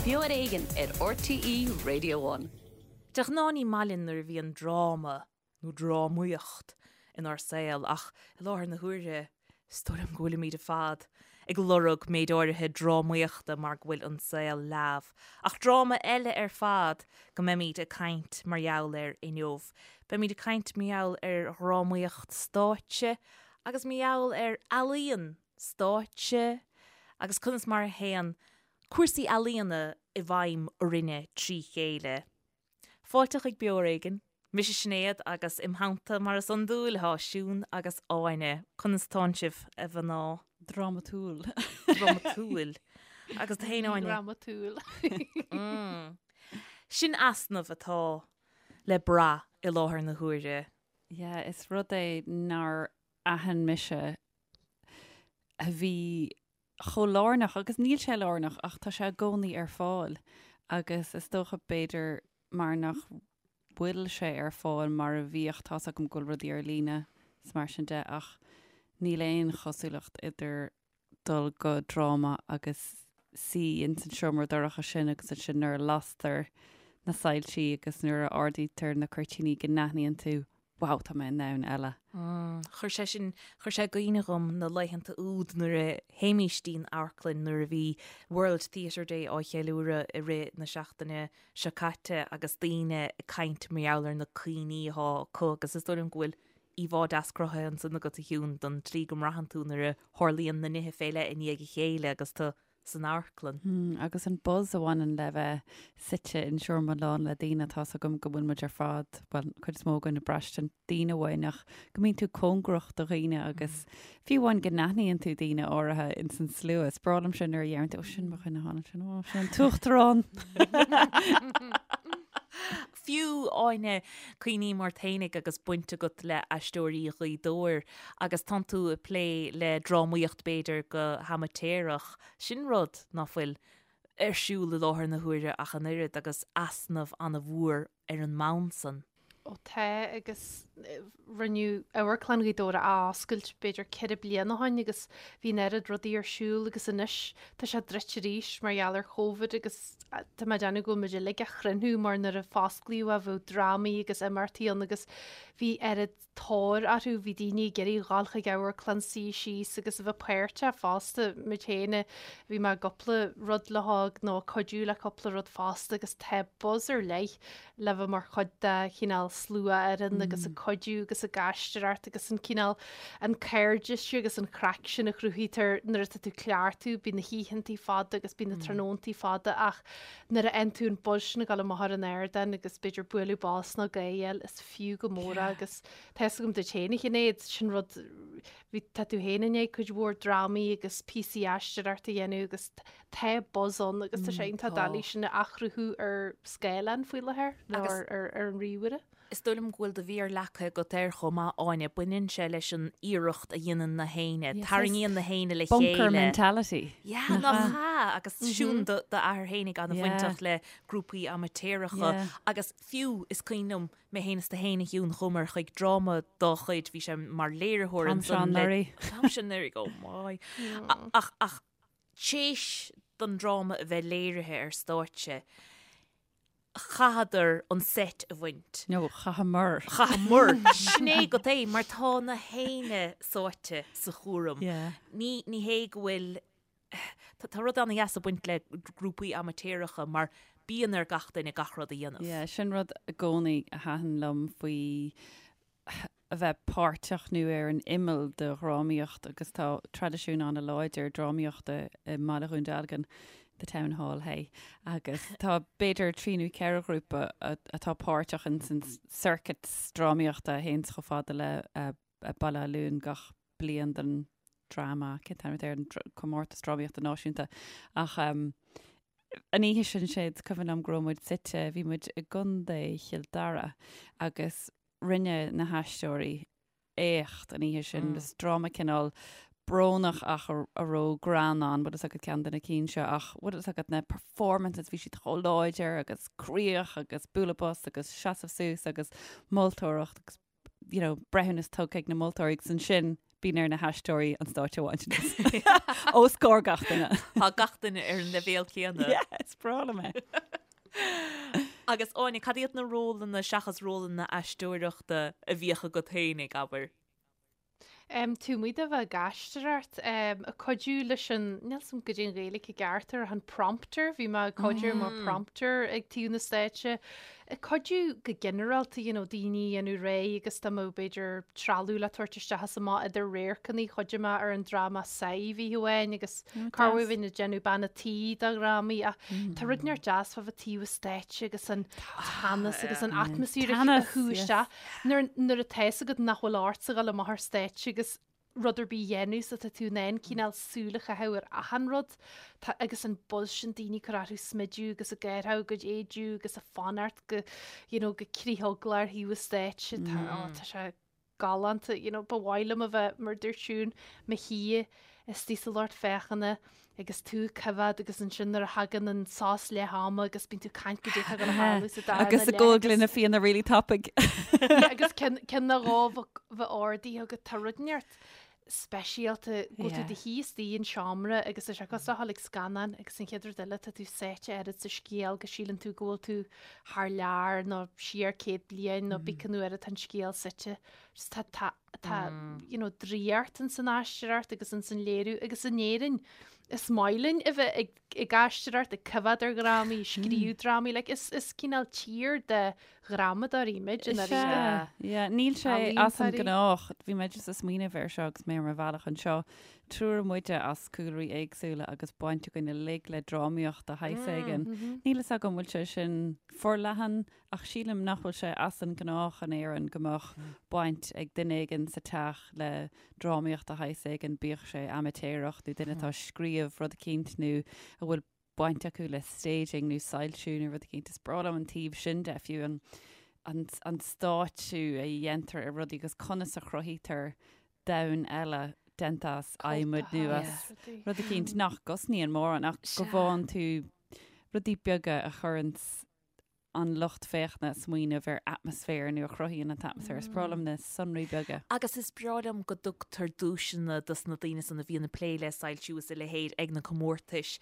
Beo ar Éigean ar RTÉ Radio One. De ghnáth ní maith linn nuair a bhíonn dráma nó drámaíocht inár saol ach i láthair na huaire is dóigh liom go bhfuilimid ar fad ag lorg méid áirithe drámaíochta mar go bhfuil an saol leamh. Ach dráma eile ar fad go mbeimid ag caint mar gheall air inniu. Beimid ag caint mar gheall ar dhrámaíocht stáitse agus mar gheall ar ealaíon stáitse agus conas mar a théann cúrsaí ealaíona i bhfeidhm orainne trí chéile. Fáilte chuig Beo Ar Éigean. Mise Sinéad agus im theannta mar is iondúil tá Siún agus Áine. Conas tánn sibh, a mhná? Drámatúil. Drámatúil. Agus tú féin, Áine? Drámatúil. Sin easnamh atá le brath i láthair na huaire. Yeah, is rud é nár aithin mise a bhí chomh lárnach, agus níl sé lárnach ach tá sé i gcónaí ar fáil agus is dócha b'fhéidir mar nach bhfuil sé ar fáil mar a bhíodh, tá's agam go bhfuil rudaí ar líne is mar sin de ach níl aon chosúlacht idir dul go dráma agus suí ins an seomra dorcha sin agus ansin nuair a lastar na soilsí agus nuair a ardaítear na cuirtíní go n-aithníonn tú wow, tá mé i ndomhan eile. Chuir sé sin, chuir sé i gcuimhne dhom na laethanta úd nuair a théimís dtí'n amharclann nuair a bhí World Theatre Day á cheiliúradh i rith na seachtaine seo caite agus daoine ag caint mar gheall ar na cuimhní atá acu agus is dóigh liom go bhfuil íomhá deas cruthaithe ansan agat a Shiún don tslí go mbraitheann tú nuair a tharlaíonn na nithe fé leith i ndiaidh a chéile agus tú san amharclann. Agus an buzz a bhaineann le bheith suite in seomra lán le daoine, tá's agam go bhfuil muid ar fad, bhuel, an chuid is mó againn ag braistint daoine uainn ach go mbíonn tú cóngarach do dhaoine agus fiú amháin go n-aithníonn tú daoine áirithe ins an slua. Is breá liom sin nuair a dheireann tú, ó sin mo dhuine thall ansin, ó sin an t-uachtarán. Fiú, Áine, cuimhním ort fhéinig agus baint agat le Aisteoirí Ghaoth Dobhair agus tánn tú ag plé le drámaíocht b'fhéidir go hamaitéarach, sin rud ná fuil ar siúl i láthair na huaire ach an oiread agus easnamh an-mhór ar an mbonn san. Ó tá agus rinneadh Amharclann Ghaoth Dobhair a oscailt b'fhéidir 4 bliana ó shin agus bhí an oiread rudaí ar siúl agus anois tá sé druidte arís mar gheall ar Covid agus tá mé ag déanamh go bhfuil muid uilig á chrionnú mar nuair a fosclaíodh é bheadh drámaí agus imeachtaí ann agus bhí oiread tóir orthu, bhí daoine ag iarraidh dhul chuig amharclann, suí síos agus a bheith páirteach fosta, muid féin, bhí mé i gcúpla rud le hóg nó ag cuidiú le cúpla rud fosta agus tá buzz ar leith le bheith mar chuid de chineál sluafhoireann agus ag cuidiú agus ag aisteoireacht agus an cineál an cairdeas agus an chraic sin a chruthaítear nuair atá tú ag cleachtadh, bíonn na hoícheantaí fada agus bíonn na tráthnóntaí fada ach nuair a fhaigheann tú an buzz sin ag dul amach ar an ardán agus b'fhéidir bualadh bos nó gáire, is fiú go mór é agus tá fhios agam duit féin a Shinéad, sin rud, bhí, tá tú féin i ndiaidh cuid mhór drámaí agus píosaí aisteoireachta a dhéanamh agus tá buzz ann agus tá sé iontach doiligh sin a athchruthú ar scáileán faoi láthair nó ar ar an ríomhaire. Is dóigh liom go bhfuil do mhéar leagtha agat air chomh maith, Áine. Baineann sé leis an iarracht a dhéanann na héinne. Tarraingíonn na héinne le chéile. Bunker mentality. Yeah, nach ea? Agus Siún, d'athair fhéinig an-bhainteach le grúpaí amaitéaracha agus fiú is cuimhin liom mé féin is tú féin a Shiún, chuamar chuig dráma dá chuid, bhí sé mar léiritheoir ansan le. An t-am seo anuraidh. An t-am seo anuraidh, oh my. Ach, ach théis don dráma a bheith léirithe ar stáitse, chaitheadar an seit a bhaint. No, chaitheamar. Chaitheamar. Sin é agat é, mar tá na héinne sáite sa chúram. Yeah. Ní, ní hé go bhfuil, tá, tá rud an-dheas ag baint le grúpaí amaitéaracha mar bíonn ar gach duine gach rud a dhéanamh. Yeah, sin rud i gcónaí a thaitin liom faoi a bheith páirteach nó ar an imeall de dhrámaíocht agus tá traidisiún an-láidir drámaíochta i mBaile Dhún Dealgan, The Town Hall, hey, agus tá b'fhéidir trí nó ceithre ghrúpa atá páirteach in san circuit drámaíochta a théanns chomh fada le Baile Átha Luain gach bliain don dráma, cén t-ainm atá air, an comórtas drámaíochta náisiúnta. Ach an oíche sin, sé, is cuimhin liom go raibh muid suite, bhí muid i gContae Chill Dara agus rinne na haisteoirí éacht an oíche sin. Is dráma cineál brónach ach a raibh greann ann, bhfuil fhios agat ceann de na cinn seo ach bhfuil fhios agat na performances bhí siad chomh láidir agus críoch agus bualadh bos agus seasamh suas agus moltóireacht agus you know, breithiúnas tugtha ag na moltóirí agus ansin. Bíonn ar na haisteoirí an stáitse a bhaint anuas. Os comhair gach duine. Tá gach duine ar an leibhéal céanna. Yeah, is breá liom é. Agus Áine, cad iad na rólanna seachas rólanna aisteoireachta a bhíodh agat féinig, abair? Um, taobh amuigh de bheith ag aisteoireacht, um, ag cuidiú leis an, níl 's a'm goidé an Ghaeilge i gceart air, an prompter, bhí mé ag cuidiú mar prompter ag taobh na stáitse, Ag cuidiú go ginearálta, you know, daoine a dhéanamh réidh agus dá mbeadh b'fhéidir trealamh le tabhairt isteach is amach idir radharcanna, chuidigh mé ar an dráma Sadhbh oíche amháin agus corruair bhínn ag déanamh bean a' tí do dhrámaí ach tá rud inteacht deas fá bheith taobh an stáitse agus an teannas agus an atmaisféar a shú isteach nuair nuair atá fhios agat nach bhfuil ortsa dhul amach ar stáitse agus rud ar bith a dhéanamh so tá tú in ann cineál súil a chaitheamh ar achan rud. Tá agus an buzz sin daoine ag cur orthu smidiú agus ag gearradh a gcuid éadaí agus ag fanacht go you know go critheaglach ar thaobh an stáitse. Tá oh tá sé galánta you know ba mhaith liom a bheith mar dúirt Siún mo shuí istigh sa lucht féachana agus tú ag coimhéad agus ansin nuair a thagann an sos leath ama agus bíonn tú ag caint goidé atá ag gabháil a tharlú sa darna Agus ag ól gloine fíona really tapaidh. Yeah, agus ceann ceann nó dhó bheith ardaithe agat tá rud inteacht speisialta go bhfuil tú do shuí istigh in seomra agus tá sé cosúil le dhul ag scannán agus an chéad rud eile tá tú sáite oiread sa scéal go síleann tú go bhfuil tú thar lear nó siar 100 bliain nó pé cén uair atá an scéal suite. Just tá tá Tá you know, draíocht ins an aisteoireacht agus ins an léiriú agus in Éirinn is maith linn a bheith ag, ag aisteoireacht, ag coimhéad ar dhrámaí, scríobh drámaí, like, is, is cineál tír de dhrámadóirí muid i ndáiríre. Yeah, níl sé as an gnách, bhí mé just ag smaoineamh air seo agus mé ar mo bhealach anseo, triúr muide as cúlraí éagsúla agus baint againn uilig le drámaíocht de shaghas éigin. Níl fhios agam bhfuil sé sin forleathan Ach sílim nach bhfuil sé as an ngnách in Éirinn go mbeadh baint ag duine éigin sa teach le drámaíocht de shaghas éigin, bíodh sé amaitéarach nó duine atá ag scríobh rud eicínt nó a bhfuil baint acu le staging nó soilsiú nó rud eicínt. Is breá liom an taobh sin de, fiú an, an, an stáitsiú a dhéantar ar rudaí agus conas a chruthaítear domhan eile déanta as adhmad nó as rud eicínt nach gcosnaíonn mórán ach go bhfaigheann tú rudaí beaga a chuireanns an lucht féachana ag smaoineamh ar atmaisféar nó a chruthaíonn an t-atmaisféar. Is breá liom na sonraí beaga. Agus is breá liom go dtugtar duaiseanna dos na daoine san a bhíonn ag plé le soilsiú is a leithéid ag na comórtais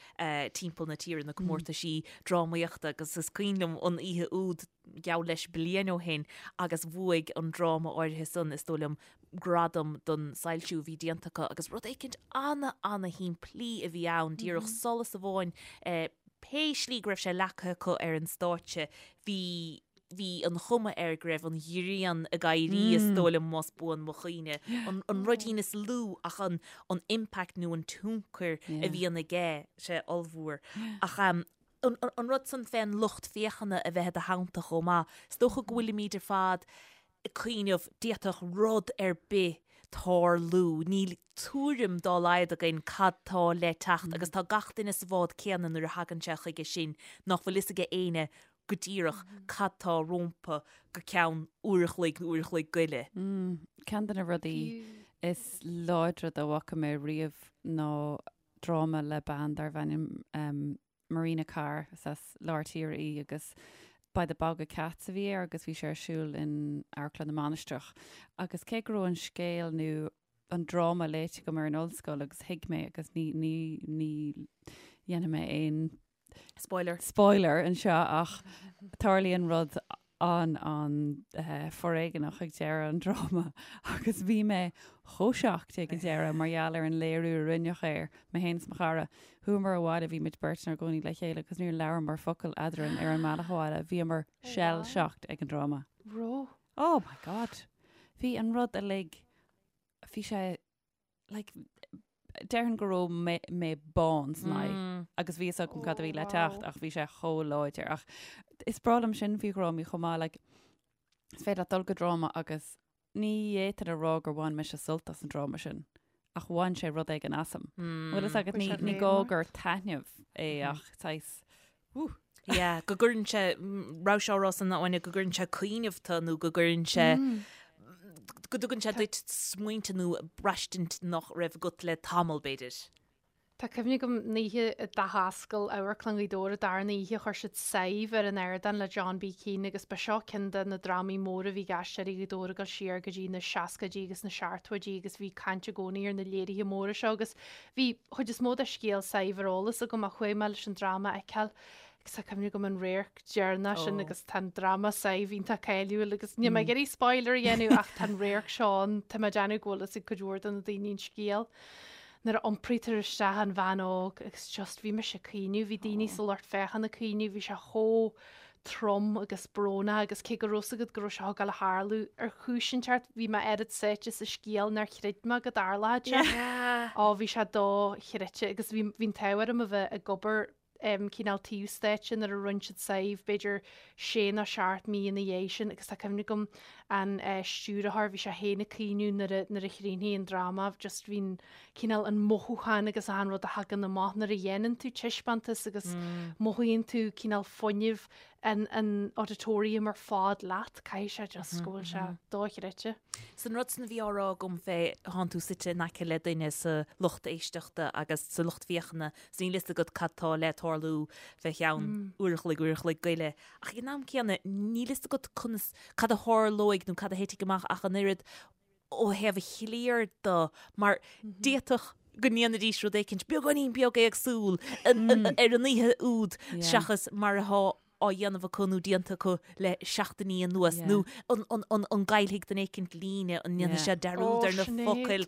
timpeall na tíre, na comórtaisí drámaíochta agus is cuimhin liom an oíche úd, geall leis bliain ó shin, agus bhuaigh an dráma áirithe san, is dóigh liom, gradam don soilsiú a bhí déanta acu agus rud éicint ana-ana-shimplí a bhí ann, díreach solas amháin, pé slí go raibh sé leagtha acu ar an stáitse, bhí, bhí an chuma air go raibh an ghrian ag éirí, is dóigh liom, más buan mo chuimhne. An, an ruidín is lú ach an, an impact nó an tionchar a bhíonn aige, sé ollmhór. Ach an, an rud san fén lucht féachana a bheith i do theannta chomh maith, is dócha go bhfuilimid ar fad ag cuimhneamh, d'fhéadfadh rud ar bith tarlú, níl tuairim dá laghad againn cad tá le teacht agus tá gach duine sa bhád céanna nuair a thagann sé chuige sin, nach bhfuil fhios aige éinne go díreach cad tá rómpa go ceann uair a chloig nó uair a chloig go leith. Ceann de na rudaí is láidre dá bhfaca mé riamh ná dráma le bean darbh ainm Marina Carr, is as lár tíre í agus By the Bog of Cats a bhí air agus bhí sé ar siúl in Amharclann na Mainistreach. Agus cé go raibh an scéal nó an dráma léite agam ar an ollscoil agus thuig mé agus ní, ní, ní dhéanfaidh mé aon Spoiler. spoiler anseo ach tarlaíonn rud an-an-fhoréigeanach ag deireadh an dráma agus bhí mé chomh shocked ag an deireadh mar gheall ar an léiriú a rinneadh air, mé féin is mo chara. Chuamar abhaile, bhí muid beirt inár gcónaí le chéile agus níor labhramar focal eadrainn ar an mbealach abhaile, bhíomar shell shocked ag an dráma. Raibh? Oh my God! Bhí an rud uilig, bhí sé like, déarfainn go raibh mé, mé bán san aghaidh agus bhí fhios agam cad a bhí le teacht ach bhí sé chomh láidir. Ach is breá liom sin faoi dhrámaí chomh maith, like, is féidir leat dul go dráma agus ní fhéadfainn a rá gur bhain mise sult as an dráma sin ach bhain sé rud éigin asam. Bhfuil fhios agat, ní, ní gá gur taitneamh é ach saghas, wú. Yeah, go gcuireann sé, raibh sé á rá san Áine, go gcuireann sé cuimhneamh tú nó go gcuireann sé, go dtugann sé duit smaointe nó braistint nach raibh agat le tamall, b'fhéidir. Tá cuimhne agam an oíche a d'athoscail Amharclann Ghaoth Dobhair an darna oíche chuir siad Sadhbh ar an ardán le John B. Keane agus ba seo ceann de na drámaí móra a bhí ag Aisteoirí Ghaoth Dobhair ag dul siar go dtí na seascaidí agus na seachtóidí agus bhí caint i gcónaí ar na léirithe móra seo agus bhí chuid is mó de scéal Sadhbh ar eolas agam ach chuaigh mé leis an dráma a fheiceáil agus tá cuimhne agam an radharc deireanach sin agus tá an dráma Sadhbh iontach cáiliúil agus níl mé ag iarraidh spoiler a dhéanamh ach tá an radharc seo ann, tá mé ag déanamh go bhfuil fhios ag cuid mhór de na daoine an scéal. nuair a iompraítear isteach an bhean óg agus just bhí mise ag caoineadh, bhí daoine sa lucht féachana ag caoineadh, bhí sé chomh trom agus brónach agus cé go raibh fhios agat go raibh sé ag gabháil a tharlú ar chúis inteacht bhí mé oiread sáite sa scéal nár chreid mé go dtarlódh sé. Ó bhí sé dochreidte agus bhí bhí an t-ádh orm a bheith ag obair cineál taobh stáitse nuair a rinne siad Sadhbh, b'fhéidir sé nó seacht mí ina dhiaidh sin agus tá cuimhne agam an stiúrthóir, bhí sé féin ag caoineadh nuair a nuair a chríochnaigh an dráma, just bhí an cineál an mothúchán agus achan rud a thagann amach nuair a dhéanann tú taispeántas agus mothaíonn tú cineál fuinneamh an an auditorium ar fad leat, caithfidh sé just go bhfuil sé dochreidte. 'S an rud san a bhí á rá agam fé thánn tú suite in aice le duine sa lucht éisteachta agus sa lucht féachana 's níl fhios agat cad tá le tarlú fé cheann uair a chloig, uair a chloig go leith. Ach ag an am céanna, níl fhios agat conas, cad a tharlóidh nó cad a thitfidh amach ach an oiread ó thaobh an chliar de, mar d'fhéadfadh go ndéanfaidís rud éicint beagáinín beag éagsúil ar an oíche úd seachas mar atá á dhéanamh acu nó déanta acu le seachtainí anuas nó an gcaillfidh duine éicint líne, an ndéanfaidh sé dearúd ar na focail.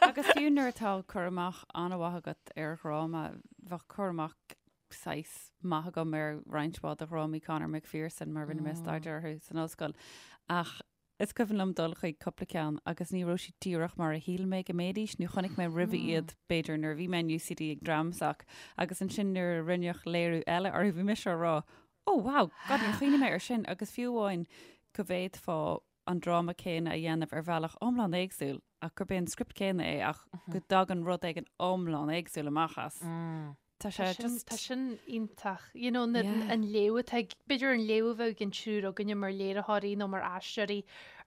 Agus fiú nuair atá cur amach an-mhaith agat ar dhráma, bheadh cur amach saghas maith agam ar roinnt mhaith de dhrámaí Conor McPherson mar rinne mé staidéar orthu san ollscoil ach Is cuimhin liom dul chuig cúpla ceann agus ní raibh siad díreach mar a shíl mé go mbeidís nó chonaic mé roimhe iad b'fhéidir nuair a bhí mé in UCD ag Dramsoc agus ansin nuair a rinneadh léiriú eile orthu bhí mise á rá oh wow, God níor chuimhnigh mé air sin agus fiú amháin go bhféadfá an dráma céanna a dhéanamh ar bhealach iomlán éagsúil ach gurb é an script céanna é ach go dtagann rud éigin iomlán éagsúil amach as. Tá sé just. Tá sin iontach. You know, na, yeah. an léamh atá ag, b'fhéidir an léamh a bheadh ag an triúr againne mar léiritheoirí nó mar aisteoirí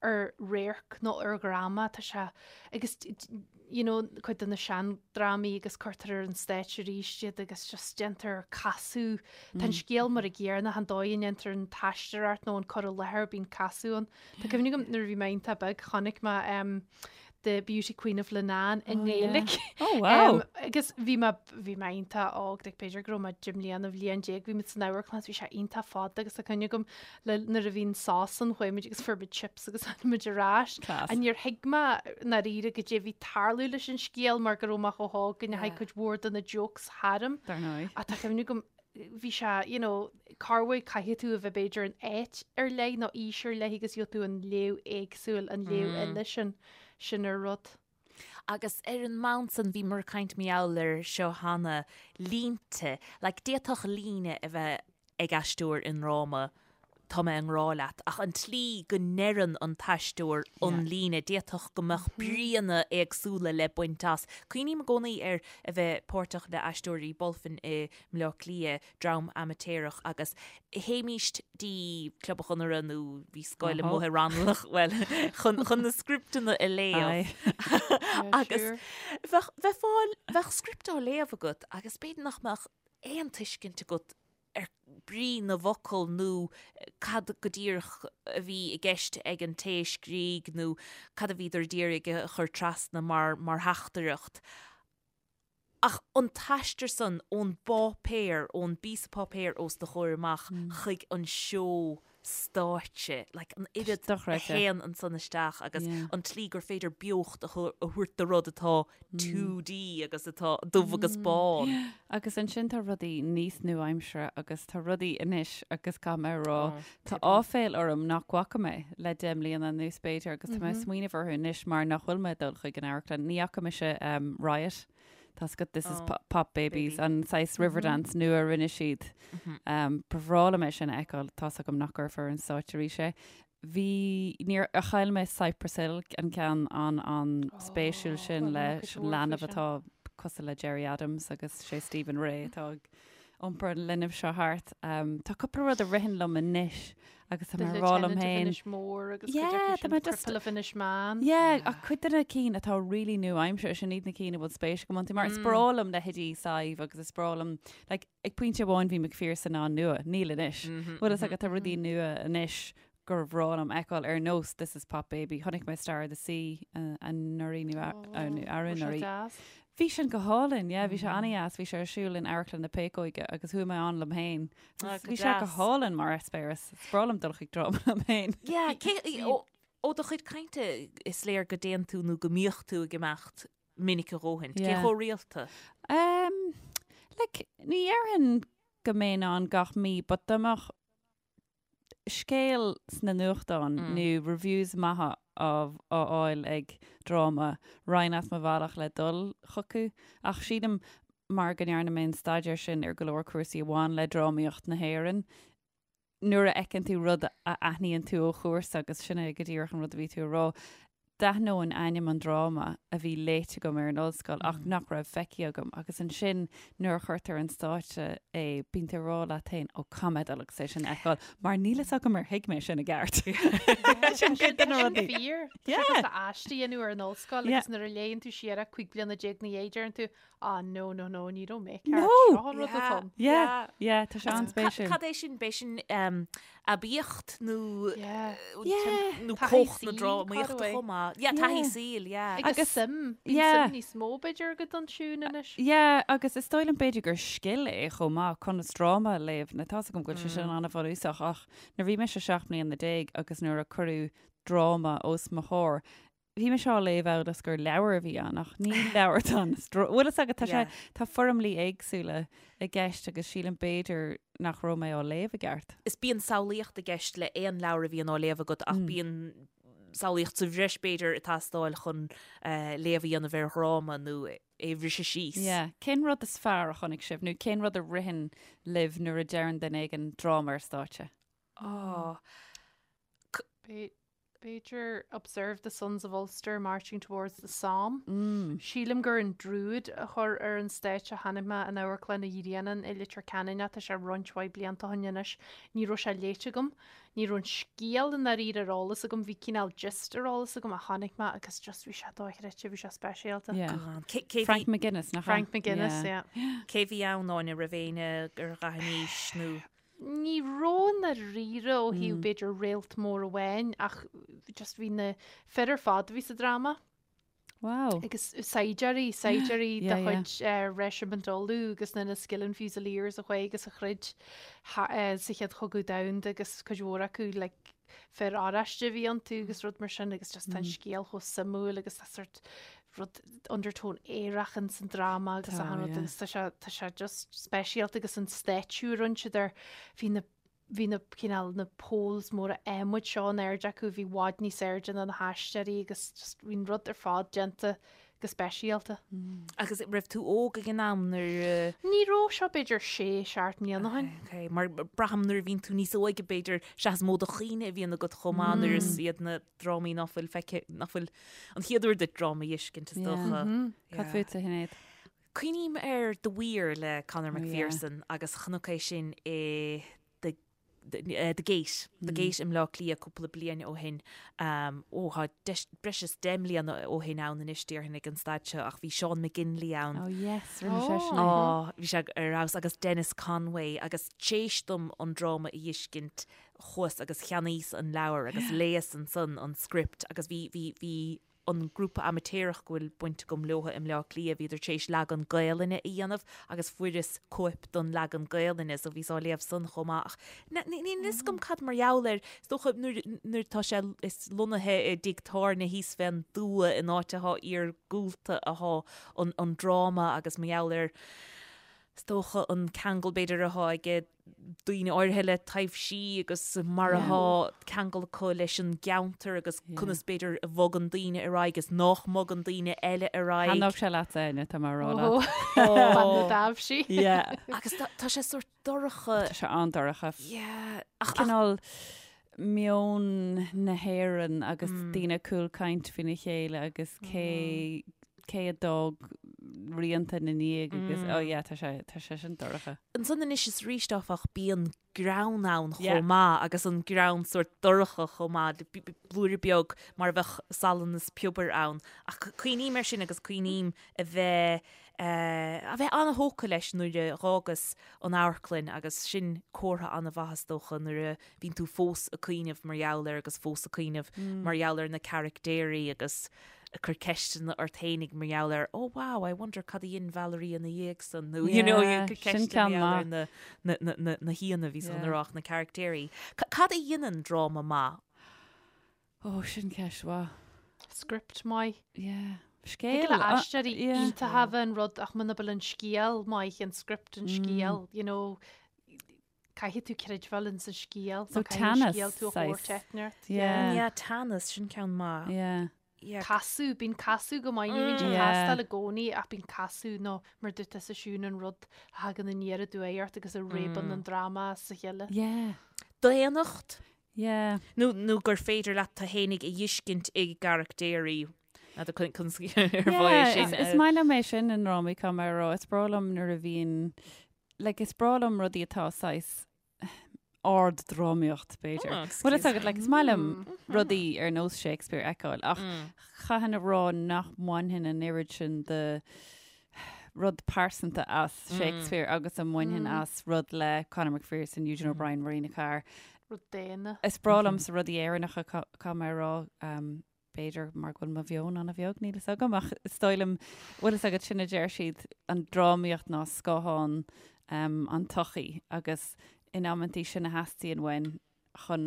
ar radharc nó ar dhráma, tá sé, agus you know, cuid de na seandrámaí agus cuirtear ar an stáitse arís iad agus just déantar casadh. Tá an scéal mar an gcéanna, an dóigh a ndéantar an t-aisteoireacht nó an cur i láthair, bíonn casadh ann. Tá cuimhne agam nuair a bhí mé iontach beag, chonaic mé um, The Beauty Queen of Leenane i nGaeilge. Oh wow! Agus bhí mé bhí mé iontach óg, like b'fhéidir go raibh mé 10 mbliana, bhliain déag, bhí muid san amharclann, bhí sé iontach fada agus tá cuimhne agam le nuair a bhí an sos ann chuaigh muid agus fuair muid chips agus tháinig muid ar ais. Class. And níor thuig mé ndáiríre goidé a bhí ag tarlú leis an scéal mar go raibh mé chomh hóg go ndeachaigh cuid mhór de na jokes tharam. Dar ndóigh. Ach tá cuimhne agam bhí sé, you know, corruair caithfidh tú a bheith b'fhéidir in áit ar leith nó aois ar leith agus gheobhaidh tú an léamh éagsúil, an léamh eile sin, sin ar rud. Agus ar an mbonn san, bhíomar ag caint mar gheall air seo cheana, línte, like d'fhéadfadh líne a bheith ag aisteoir i ndráma, tá mé i ngrá leat, ach an tslí go ndeireann an t-aisteoir an líne, d'fhéadfadh go mbeadh bríonna éagsúla le baint as. Cuimhním i gcónaí ar a bheith páirteach le Aisteoirí Bulfin i mBleá Cliath, dream amaitéarach, agus théimíst dtí Club an Chonartha nó bhí scoil amuigh i Raghnallach, bhuel, chun, chun na scripteanna a léamh. Agus bheadh, bheith fáil, bheadh script á léamh agat agus b'fhéidir nach mbeadh aon tuiscint agat ar brí na bhfocal nó cad go díreach a bhí i gceist ag an té a scrígh nó cad a bhíodar d'iarraidh a chur trasna mar mar theachtaireacht. Ach an t-aistear san ón bpáipéar, ón bpíosa páipéir os do chomhair amach chuig an seó stáitse, like an oiread a théann ansan isteach agus an tslí gur féidir beocht a thabhairt do rud atá 2D agus atá dubh agus bán. Agus ansin tá rudaí níos nua-aimseartha agus tá rudaí anois agus caithfidh mé a rá, tá áiféal orm nach bhfaca mé le 10 mbliana anuas b'fhéidir agus tá mé ag smaoineamh orthu anois mar nach bhfuil mé ag dul chuig an amharclann. Ní fhaca mise Riot. Tá's agat This is Pop Babies, an saghas Riverdance nua a rinne siad. Ba bhreá liom é sin a fheiceáil, tá's agam nach gcuirfear ar an stáitse arís é. Bhí, níor, chaill mé Cypress Hill, an ceann an, an spéisiúil sin le leanbh atá cosúil le Gerry Adams agus sé Stephen Rea atá ag. iompar an linbh seo thart. Tá cúpla rud a ritheann liom anois agus tá mé ag rá liom féin. Inis Mór agus cuid acu sin, The Cripple of Inishmaan. Yeah, ach cuid de na cinn atá really nua-aimseartha, sin iad na cinn a bhfuil spéis agam iontu, mar is breá liom leithéidí Sadhbh agus is breá liom, like, ag pointe amháin bhí Macpherson an-nua, níl anois. Bhfuil fhios agat, tá rudaí nua anois gur bhreá liom fheiceáil ar nós This is Pop Baby. Chonaic mé Star of the Sea anuraidh nó arú anuraidh. Bhí sin go hálainn, yeah, bhí sé an-dheas, bhí sé ar siúl in Amharclann na Péacóige agus chuaigh mé ann liom féin. Bhí sé go hálainn mar eispéireas. Is breá liom dul chuig dráma liom féin. Yeah, cé, ó do chuid cainte is léir go dtéann tú nó go mbíodh tú ag imeacht minic a dhóthain. Cé chomh rialta? Um, like, ní dhéarfainn go mbeinn ann gach mí, but dá mbeadh scéal sna nuachtáin nó reviews maithe á fháil ag dráma, raghainn as mo bhealach le dul chucu. Ach sílim, mar go ndearna mé an staidéar sin ar go leor cúrsaí a bhain le drámaíocht na hÉireann, nuair a fheiceann tú rud a aithníonn tú ó chúrsa, agus sin é go díreach an rud a bhí tú a rá, D'aithneoinn ainm an dráma a bhí léite agam ar an ollscoil ach nach raibh feicthe agam agus ansin nuair a chuirtear ar an stáitse é bíonn tú ag rá leat féin 'ó caithfidh mé dul agus é sin a fheiceáil mar níl fhios agam ar thuig mé sin i gceart. Sin cuid de na rudaí. Fíor. Tá sé cosúil le aiste a dhéanamh ar an ollscoil agus nuair a léann tú siar é 15 bliana ina dhiaidh deireann tú Ah no no no ní raibh mé ceart. Seo an rud atá ann. Yeah, yeah, tá sé an-spéisiúil. Cad é sin? B'é sin aibíocht nó nó cumhacht na drámaíochta chomh maith. Yeah, taithí saoil, yeah. Agus suim, bíonn suim níos mó b'fhéidir agat ansiúd anois. Yeah, agus is dóigh liom b'fhéidir gur scil é chomh maith conas dráma a léamh. Now tá's agam go bhfuil sé sin an-bhunúsach ach nuair a bhí mise 17 mbliana agus nuair a cuireadh dráma os mo chomhair, Bhí mise á léamh amhail is gur leabhar a bhí ann, ach ní leabhar atá ann. Bhfuil fhios agat, tá sé, tá foirmlí éagsúla i gceist agus sílim b'fhéidir nach raibh mé á léamh i gceart. Is bíonn samhlaíocht i gceist le aon leabhar a bhíonn á léamh agat ach bíonn samhlaíocht sa bhreis b'fhéidir ag teastáil chun léamh a dhéanamh ar dhráma nó é a bhriseadh síos. Yeah. Cén rud is fearr a chonaic sibh nó cén rud a ritheann libh nuair a deireann duine éigin dráma ar stáitse? Oh. B'fhéidir Observe the Sons of Ulster marching towards the Somme. Sílim gur an Druid a chuir ar an stáitse a chonaic mé in Amharclann an Ghrianáin i Leitir Ceanainn ach tá sé roinnt mhaith blianta ó shin anois. Ní raibh sé léite agam. Ní raibh an scéal i ndáiríre ar eolas agam. Bhí cineál gist ar eolas agam ach chonaic mé agus just bhí sé dochreidte, bhí sé speisialta. Yeah. Frank McGuinness, nach ea? Frank McGuinness, yeah. Cé bhí ann, Áine, raibh éinne ar dh'aithníis nó? Ní raibh i ndáiríre ó thaobh b'fhéidir réalt mór amháin ach just bhí na fir ar fad a bhí sa dráma. Wow. Agus saighdiúirí, saighdiúirí de chuid Reisimint Uladh agus na Inniskilling Fusiliers a chuaigh agus a throid sa Chéad Chogadh Domhanda agus cuid mhór acu like fir oráiste a bhí iontu agus rud mar sin agus just tá an scéal chomh suimiúil agus tá sort rud undertone aerach in san dráma agus achan rud agus tá sé tá sé just speisialta agus an stáitsiú a rinne siad air bhí na bhí na cineál na poles móra adhmaid seo in airde acu bhí i bhfad níos airde ná na haisteoirí agus just bhí an rud ar fad déanta go speisialta. Agus raibh tú óg ag an am nuair a. Ní raibh seo b'fhéidir sé, seacht mbliana ó shin. Ok, mar braithim nuair a bhíonn tú níos óige b'fhéidir sea is mó de chuimhne a bhíonn agat chomh maith nuair is iad na drámaí nach bhfuil feicthe, nach bhfuil an chéad uair duit dráma a fheiscint is dócha. Cad fútsa, a Shinéad? Cuimhním ar The Weir le Conor McPherson agus chonac é sin i The The Gate, The Gate i mBleá Cliath cúpla bliain ó shin. Ó, tá breis is 10 mbliana ó shin ann anois déarfainn ag an staid seo ach bhí Seán McGinley ann. Oh yes, rinne seisean é. Ó, bhí sé ar fheabhas agus Dennis Conway agus t'éis dom an dráma a fheiscint chuas agus cheannaíos an leabhar agus léas ansan an script agus bhí, bhí, bhí an grúpa amaitéarach go bhfuil baint agam leo i mBleá Cliath, bhíodar tar éis leagan Gaelainne a dhéanamh agus fuaireas cóip don leagan Gaelainne so bhíos á léamh san chomh maith ach níl fhios agam cad mar gheall air, is dócha nuair, nuair tá sé, is lonnaithe i dtigh tábhairne thíos fén dtuath in áit athá iargúlta athá an, an dráma agus mar gheall ar, is dócha an ceangal b'fhéidir athá aige daoine áirithe le taibhsí agus mar athá ceangal acu leis an gceantar agus conas b'fhéidir a bhogann daoine ar aghaidh is nách mbogann daoine eile ar aghaidh. Thaitneodh sé leat Áine, tá mé a rá leat. Bean na dtaibhsí. Yeah. Agus tá sé sórt dorcha. Tá sé an-dorcha. Yeah. Ach cineál meon na hÉireann agus daoine ag cúlchaint faoina chéile agus cé cé a d'fhág rianta ina ndiaidh agus oh yeah tá sé tá sé sin dorcha. Ansan anois is arís áfach bíonn greann ann chomh maith agus an greann sórt dorcha chomh maith, blúire beag mar a bheadh salann is piobar ann. Ach cuimhním air sin agus cuimhním a bheith a bheith an-thógtha leis nuair a dh'fhágas an amharclann agus sin comhartha an-mhaith is dócha nuair a bhíonn tú fós ag cuimhneamh mar gheall air agus fós ag cuimhneamh mar gheall ar na caractéirí agus ag cur ceisteanna ort fhéinig mar gheall ar oh wow, I wonder cad a dhein Valerie ina dhiaidh san nó you know Yeah, ag cur sin ceisteanna ceann mar gheall ar maith. na, na, na, na, na haíonna a bhí san Yeah. rá na caractéirí. Cad a dhéanann dráma maith? Ó, sin ceist mhaith. Script maith. Yeah. Thig Scéal. le aisteoirí yeah. iontacha a bheith an rud ach muna bhfuil an scéal maith, an script an scéal, you know, caithfidh tú creidbheáil ins an scéal. So nó caithfidh an teannas, scéal tú a saghas. thabhairt eitneart. Yeah. Yeah, teannas, sin ceann maith. Yeah. Yeah. Casadh, bíonn casadh go maith, ní bhíonn sé ag Yeah. teastáil i gcónaí ach bíonn casadh nó mar dúirt tusa Siún an rud a thagann aniar aduaidh ort agus a réabann an dráma as a chéile. Yeah. Daonnacht? Yeah. Nó, nó gur féidir leat tú fhéinig a dh'fheiscint i gcaractéirí. N'fheadar conas ar mhaith é Yeah, sin. is, is maith liom é sin i ndrámaí caithfidh mé a rá. Is breá liom nuair a bhíonn, like, is breá liom rudaí atá saghas ard-drámaíocht, b'fhéidir. Oh, Bhfuil fhios excuse agat, like, is maith liom rudaí ar nós Shakespeare a fheiceáil, ach chaithfinn a rá nach mbainfinn an oiread sin de rud pearsanta as Shakespeare agus a mbainfinn as rud le Conor McPherson, Eugene O'Brien, Marina Carr. Rud daonna. Is breá liomsa rudaí Éireannacha, caithfidh mé a rá, b'fhéidir mar go bhfuil mo mheon an-bheag, níl fhios agam, ach is dóigh liom, bhfuil fhios agat, sin a deir siad, an drámaíocht ná scáthán an tsochaí agus in amantaí sin a theastaíonn uainn chun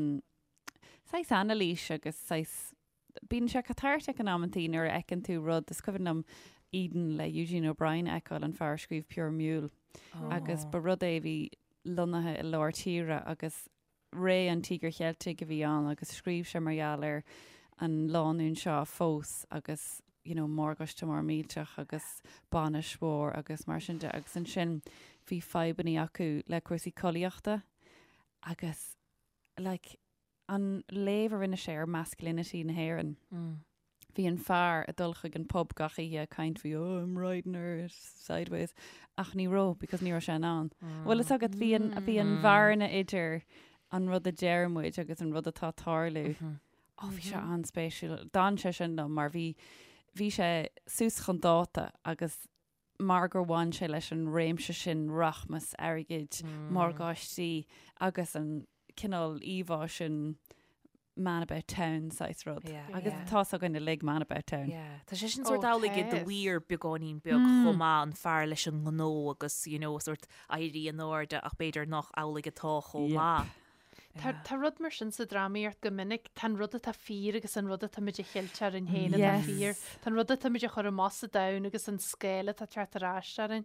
saghas anailís agus saghas, bíonn sé catartic in amantaí nuair a fheiceann tú rud, is cuimhin liom Eden le Eugene O'Brien a fheiceáil, an fear a scríobh Pure Mule, agus ba rud é a bhí lonnaithe i lár tíre agus ré an Tíogair Cheiltigh a bhí ann agus scríobh sé mar gheall ar an lánúin seo a phós agus you know morgáiste mór millteach agus bainis mhór agus mar sin de agus ansin bhí fadhbannaí acu le cúrsaí collaíochta agus like an léamh a rinne sé ar masculinity na hÉireann. Bhí an fear ag dul chuig an pub gach oíche ag caint faoi oh I'm riding her sideways ach ní raibh because ní raibh sé in ann. Bhfuil fhios agat bhí an bhí an bhearna idir an rud a deir muid agus an rud atá ag tarlú. Ó bhí sé an-spéisiúil. D'fhan sé sin liom mar bhí bhí sé suas chun dáta agus mar gur bhain sé leis an réimse sin rachmas airgid, morgáistí agus an cineál íomhá sin man about town saghas rud. Yeah. Agus Yeah. tá's againn uilig man about town. Yeah. Tá sé sin sórt Ó, amhlaidh i The tá. Weir beagáinín beag chomh maith an fear leis an ngnó agus you know sórt éirí in airde ach b'fhéidir nach amhlaidh atá chomh Yep. maith. Tá tá rud mar sin sa drámaíocht go minic, tá an rud atá fíor agus an rud atá muid a cheilt orainn féin atá Yes. fíor. Tá an rud atá muid a chur amach sa domhan agus an scéal atá ag teacht ar ais orainn.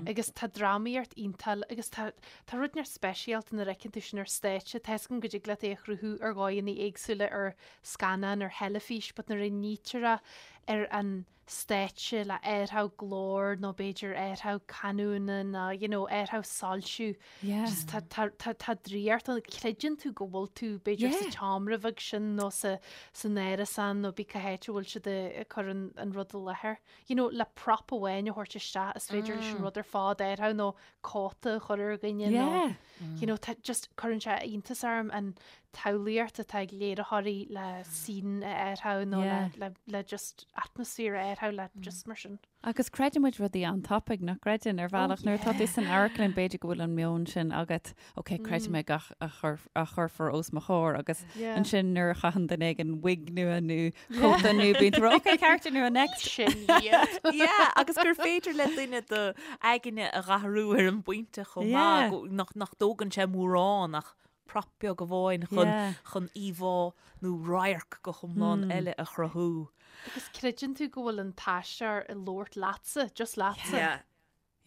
Agus tá drámaíocht iontach agus tá tá rud neart speisialta nuair a fheiceann tú sin ar stáitse. Tá 'fhios agam go dtig leat é a chruthú ar dhóigheanna éagsúla ar scannán, ar theilifís, but nuair a nítear é ar an stáitse le athrú glór nó b'fhéidir athrú canúna nó you know athrú soilsiú. Yeah. Just tá tá tá tá draíocht ann. Creideann tú go bhfuil tú b'fhéidir sa Yeah. tseomra bheag sin nó sa san árasán nó bí cá háit a bhfuil siad ag cur an an rud i láthair. You know, le prop amháin a thabhairt isteach is féidir leis an rud ar fad athrú nó cóta a chur ar dhuine nó Yeah. you know, tá just cuireann sé iontas orm an tsamhlaíocht atá ag léiritheoirí le scene a athrú nó Yeah. le, le, le just atmaisféar a athrú le just mar sin. Agus creideann muid rudaí an-tapaidh nach gcreideann ar bhealach nuair atá tú san amharclann b'fhéidir go bhfuil an meon sin agat, ok, creidfidh mé gach a chur, a chuirfear os mo chomhair agus Yeah. ansin nuair a chaitheann duine éigin wig nua nó cóta nua bíonn tú ok, character nua next. Sin iad. Yeah, agus gur féidir le duine do aigne a dh'athrú ar an bpointe chomh maith Yeah. go- nach nach dtógann sé mórán ach prop beag amháin chun Yeah. chun íomhá nó radharc go hiomlán eile a chruthú. Agus creideann tú go bhfuil an t-aisteoir ag labhairt leatsa, just leatsa. Yeah.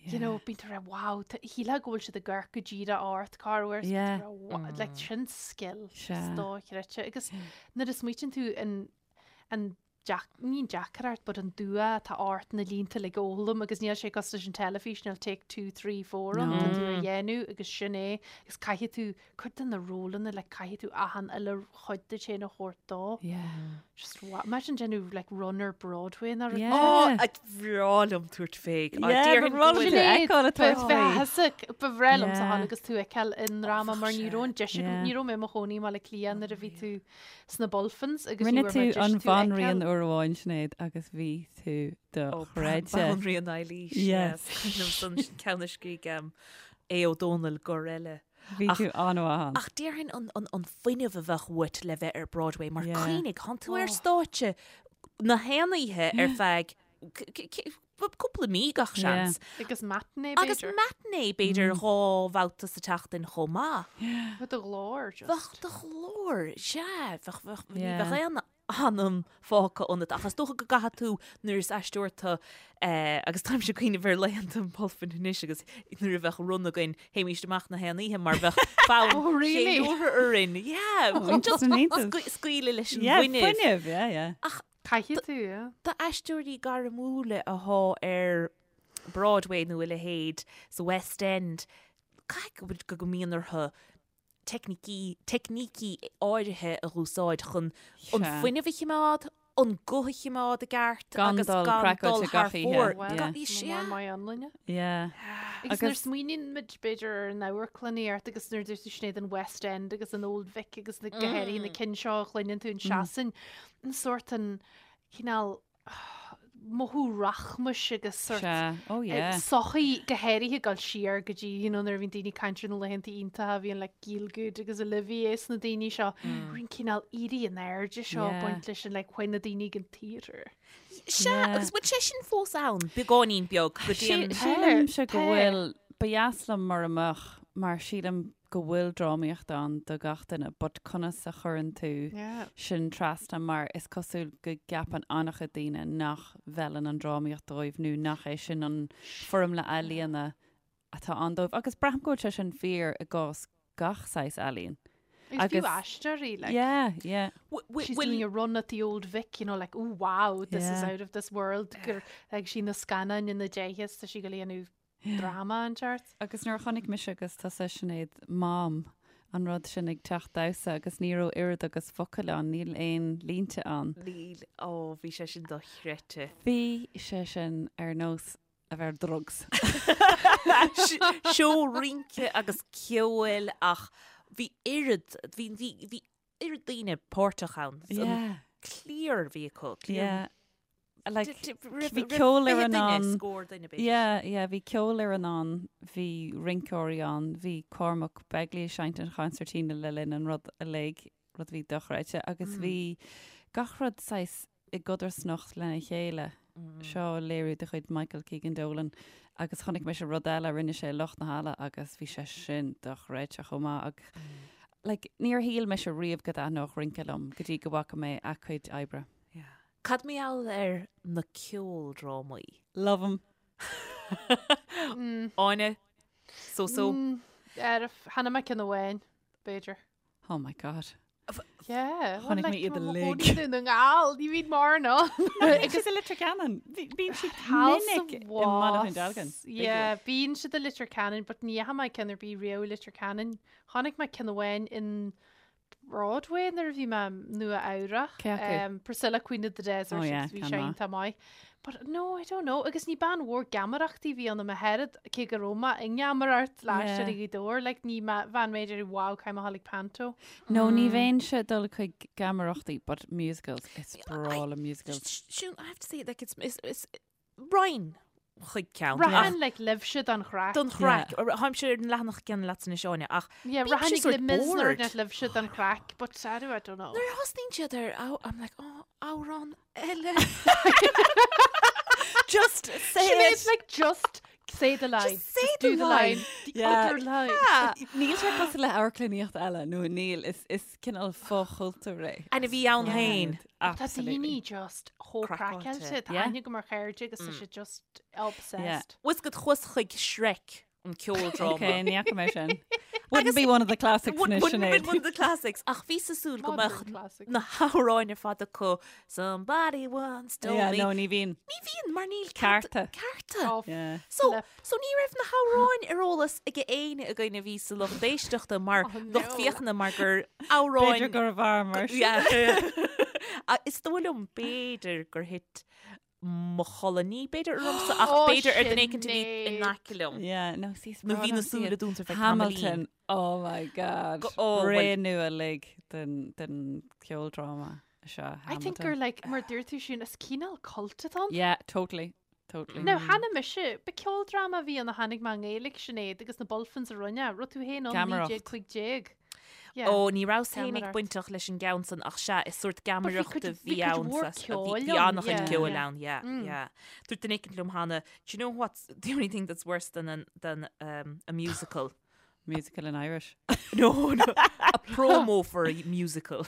You know, bíonn tú ag rá, wow, tá- shílfeá go bhfuil siad ag amharc go díreach ort, corruair, Yeah. like sin skill Sea. dochreidte. Agus nuair a smaoitíonn tú an an deac, ní an deacracht but an dua atá ort na línte uilig a fhoghlaim agus níl sé cosúil leis an teilifís, níl take two, three, four ann, tá tú á dhéanamh agus sin é agus caithfidh tú cuid de na rólanna like caithfidh tú achan uile chuid díot féin a thabhairt dó. Yeah. Just wa- imagine déanamh like run ar Broadway nó rud. Yeah. Ó, a bhreá liom tabhairt fé. Yeah, ba bhreá liom tú a fheiceáil ag tabhairt fé. Ba bhreá liomsa Yeah. a ghabháil agus tú a fheiceáil i ndráma mar ní raibh an deis agam, Yeah. ní raibh mé i mo chónaí i mBaile Átha Cliath nuair a bhí tú sna Bulfins agus Rinne ní raibh tú mé deis an tú a bhanríon fheiceáil. uair amháin, Sinéad, agus bhí tú dochreidte. Banríon Eilís. Yes. Yes. San ceann a scrígh Aodh Ó Dónaill gur eile. Bhí Ach- tú an-mhaith ann. Ach déarfainn an, an, an fuinneamh a bheadh uait le bheith ar Broadway mar Yeah. cuimhnigh, thánn tú ar stáitse na haon oíche ar feadh c- c- c- cúpla mí gach Yeah. seans. Agus matinee Agus b'fhéidir. matinee b'fhéidir dhá bhabhta sa tseachtain chomh maith. Bheadh do ghlór just. Bheadh do ghlór, sea, bheadh, bheadh, ní Yeah. bheadh aon anam fágtha ionat ach is dócha go gcaithfidh tú nuair is aisteoir tú eh, agus táimse ag cuimhneamh ar laethanta an Bhulfin anois agus nuair a bheadh run againn théimíst amach na haon oíche mar bheadh fonn Oh, really? ceiliúrtha orainn. Yeah, Oh, just an iontach. scaoileadh leis an Yeah, bhfuinneamh. fuinneamh, yeah, yeah. Ach Caithfidh tú, yeah. d'aisteoirí gairmiúla athá ar Broadway nó a leithéid sa West End, caithfidh go go mbíonn orthu teicnící, teicnící áirithe a úsáid chun an Sea. fuinneamh a chimeád, an guth a chimeád i gceart Gan agus dul gan craiceáilte dul thar gach oíche. fóir. Well, Gan- Yeah. sea. Mar maith anlainne. Yeah. Agus nuair Agus- smaoiníonn muid b'fhéidir ar an amharclannaíocht agus nuair dúirt tú Sinéad an West End agus an Old Vic agus na go háirithe na cinn seo a chluineann tú in Sasain, an sórt an cineál mothú rachmais agus sórt Sea. Oh yeah. sochaí go háirithe ag dul siar go dtí you know, nuair a bhíonn daoine ag caint ar na laethanta iontacha a bhíonn like Gielgud agus Olivier is na daoine seo, an cineál éirí in airde seo Yeah. baint leis an like when na daoine ag an theatre. Sea, Yeah. agus bhfuil sé sin fós ann, beagáinín beag go dtí an... Sílimse go Tá. bhfuil, ba dheas liom mura mbeadh, mar sílim go bhfuil drámaíocht ann do gach duine, but conas a chuireann tú Yeah. sin trasna mar is cosúil go gceapann an-chuid daoine nach bhfeileann an drámaíocht dóibh nó nach é sin an foirmle ealaíona atá ann dóibh. Agus braithim go bhfuil sé sin fíor i gcás gach saghas ealaíon. Agus fiú Agus- aisteoirí, like, Yeah, yeah. She's doing a run at the old Vic, you know, like, oh wow, this is Yeah. out of this world. Gur ag sí na scannáin ina déicheas, tá sí go léanú drama an teart. Agus nuair a chonaic mise agus tusa Sinéad Mom an rud sin ag teach damhsa agus ní raibh oiread agus focal ann, níl aon línte ann. Níl, ó, bhí sé sin dochreidte. Bhí sé sin ar nós a bheith ar drugs. Seó rince agus ceoil ach bhí oiread, bhí, bhí, bhí oiread daoine páirteach ann. An Yeah, cliar a bhí acu. cliar- yeah. Like, D- d- roimh- bhí roimh ceolfhoireann 20 duine, ann. scór duine b'fhéidir. Yeah, yeah, bhí ceolfhoireann ann, bhí rinceoirí ann, bhí Cormac Begley ag seinnt an chonsairtín le linn an rud uilig, rud a bhí dochreidte, agus bhí gach rud saghas i gcodarsnacht lena chéile. Seo léiriú de chuid Michael Keegan Dolan agus chonaic mise rud eile a rinne sé i Lucht na Halla agus bhí sé sin dochreidte chomh maith ach like, níor shíl mise riamh go dtaitneodh rince liom go dtí go bhfaca mé a cuid oibre. Yeah. Cad mar gheall ar na ceoldrámaí? Love 'em. Áine, so so. Ar chonaic mé ceann amháin, b'fhéidir. Oh my god. Yeah. Chonaic mé iad uilig. Dún na nGall, ní bhíonn mórán ann. Agus i Leitir Ceanainn, bíonn siad minic i mBaile Dhún Dealgan. Yeah, bíonn siad i Leitir Ceanainn, but ní fhaca mé ceann ar bith riamh i Leitir Ceanainn. Chonaic mé ceann amháin in Broadway nuair a bhí mé Nua Eabhrach. Cé acu? Um, Priscilla Queen of the Desert Oh, yeah, agus bhí ceann sé maith. iontach maith. But no, I don't know. Agus ní bean mhór geamaireachtaí a bhí ionam a oiread cé go raibh mé i ngeamaireacht le Yeah. hAisteoirí Ghaoth Dobhair, like, ní bhean mé ag wow, caithfidh mé a ghabháil ag panto. No, ní bheinnse ag dul chuig geamaireachtaí, but musicals, is breá liom musicals. Siún, I have to say, like, it's, it's, it's raghainn chuig ceann. Raghainn like libhse don chraic. Don chraic. Táimse ar an leathanach céanna leat anois Áine, ach Yeah, bímse raghainn sort Les Mis nuair bored. net libhse don chraic, but I do, I don't know. Nuair a thosnaíonn siad ar, oh, I'm like, oh, amhrán eile. Just say Sinéad, it. like just say the line. Just say Just the do the line. line. The Yeah. other line. Yeah. Níl sé cosúil le amharclannaíocht eile nó níl is is cineál fochultúr é. And a bhí ann féin. Tá Absolutely. daoine just chomh Craiceáilte. craiceáilte. Tá Yeah. aithne agam ar chairde agus tá siad just obsessed. Bhfuil a fhios agat chuas chuig Shrek an ceoldráma. Ok, ní fhaca mé sin. Wouldn't be one of the classics Wouldn't anois, wouldn't have been Sinéad. one of the classics ach bhíos ag súil go Modern mbeadh classics. na hamhráin ar fad acu Somebody once told Yeah, me. no, ní bhíonn. Ní bhíonn mar níl Cearta. Cearta. Oh, Yeah. So, flip. so ní raibh na hamhráin ar eolas ag éinne againn a bhí sa lucht éisteachta mar Oh, lucht no. féachana mar gur amhráin B'fhéidir gurbh fhearr mar sin. Yeah. Ah, Is dóigh liom b'fhéidir gur thit mo chodladh ní b'fhéidir ormsa ach Oh, b'fhéidir ar duine éicint a bhí in Sinéad. aice liom. Yeah, no, see, is Nó breá bhí na liom súile iad. dúnta ar feadh tamaillín. Hamilton, oh my god. Go- oh, Ré well- nua uilig den, den ceoldráma seo, I think Hamilton. gur like mar dúirt tú sin is cineál cult atá ann. Yeah, totally, totally. Now cheana mise, ba ceoldráma a bhí ann a chonaic mé i nGaeilge Sinéad agus na Bulfins a rinne, raibh tú féin ann Geamaireacht. 1915. Yeah. Ó, ní rabhas féin ag Geamaireacht. bainteach leis an gceann san ach sea, is sórt But bhí geamaireacht cuid- a bhí bhí cuid ann mhór sa- bhí- ceoil bhí ann, an-chuid yeah, ceoil yeah. ann, yeah, Mm. yeah. Dúirt duine éicint liom cheana, do you know what's the only thing that's worse than an, than um, a musical? Musical in Irish. No, no, a promo for a musical.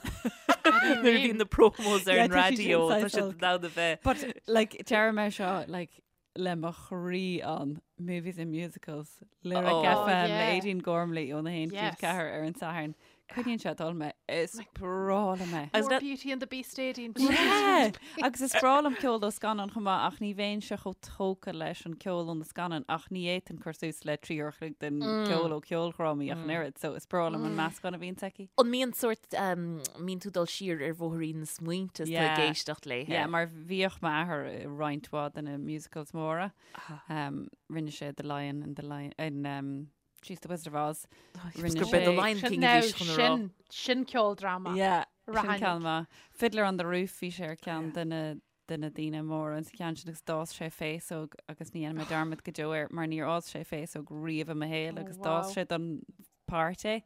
Nuair a bhíonn na promos ar Yeah, an tá siad sin raidió, tá saghas siad olc. in ann a bheith. But like deirim é seo like le mo chroí ann movies and musicals Lyric Oh. FM Oh, le yeah. Aideen Gormley óna haon Yes. 4 ar an Satharn. Coinníonn sé ag dul mé is breá liom é. Agus More that- Beauty and the Beast Aideen. Yeah. Agus is breá liom ceol ó scannán chomh maith ach ní bheinnse chomh tógtha leis an ceol ó na scannáin ach ní fhéadfainn cur suas le 3 uair a chloig den ceol ó ceoldrámaí ach an oiread, so is breá liom an meascán a bhíonn aici. An mbíonn sórt, um, mbíonn tú dul siar ar bhóithrín na smaointe is tú ag Yeah. éisteacht léithe. Yeah, mar bhíodh m'athair i roinnt mhaith de na musicals móra. Um, rinne sé The Lion and the Lion in um, Jeez, The Wizard of Oz. Rinne Gur b'é The sé- Lion Sin King now, a bhí chun a rá. sin, sin ceoldráma. Yeah, sin Rahannig. ceann maith. Fiddler on the Roof bhí sé ar ceann de na de na daoine móra an ceann sin agus d'fhás sé féasóg agus ní dhéanfaidh mé dearmad go deo air mar níor fhás sé féasóg riamh i mo shaol Oh, agus d'fhás wow. sé don páirt é.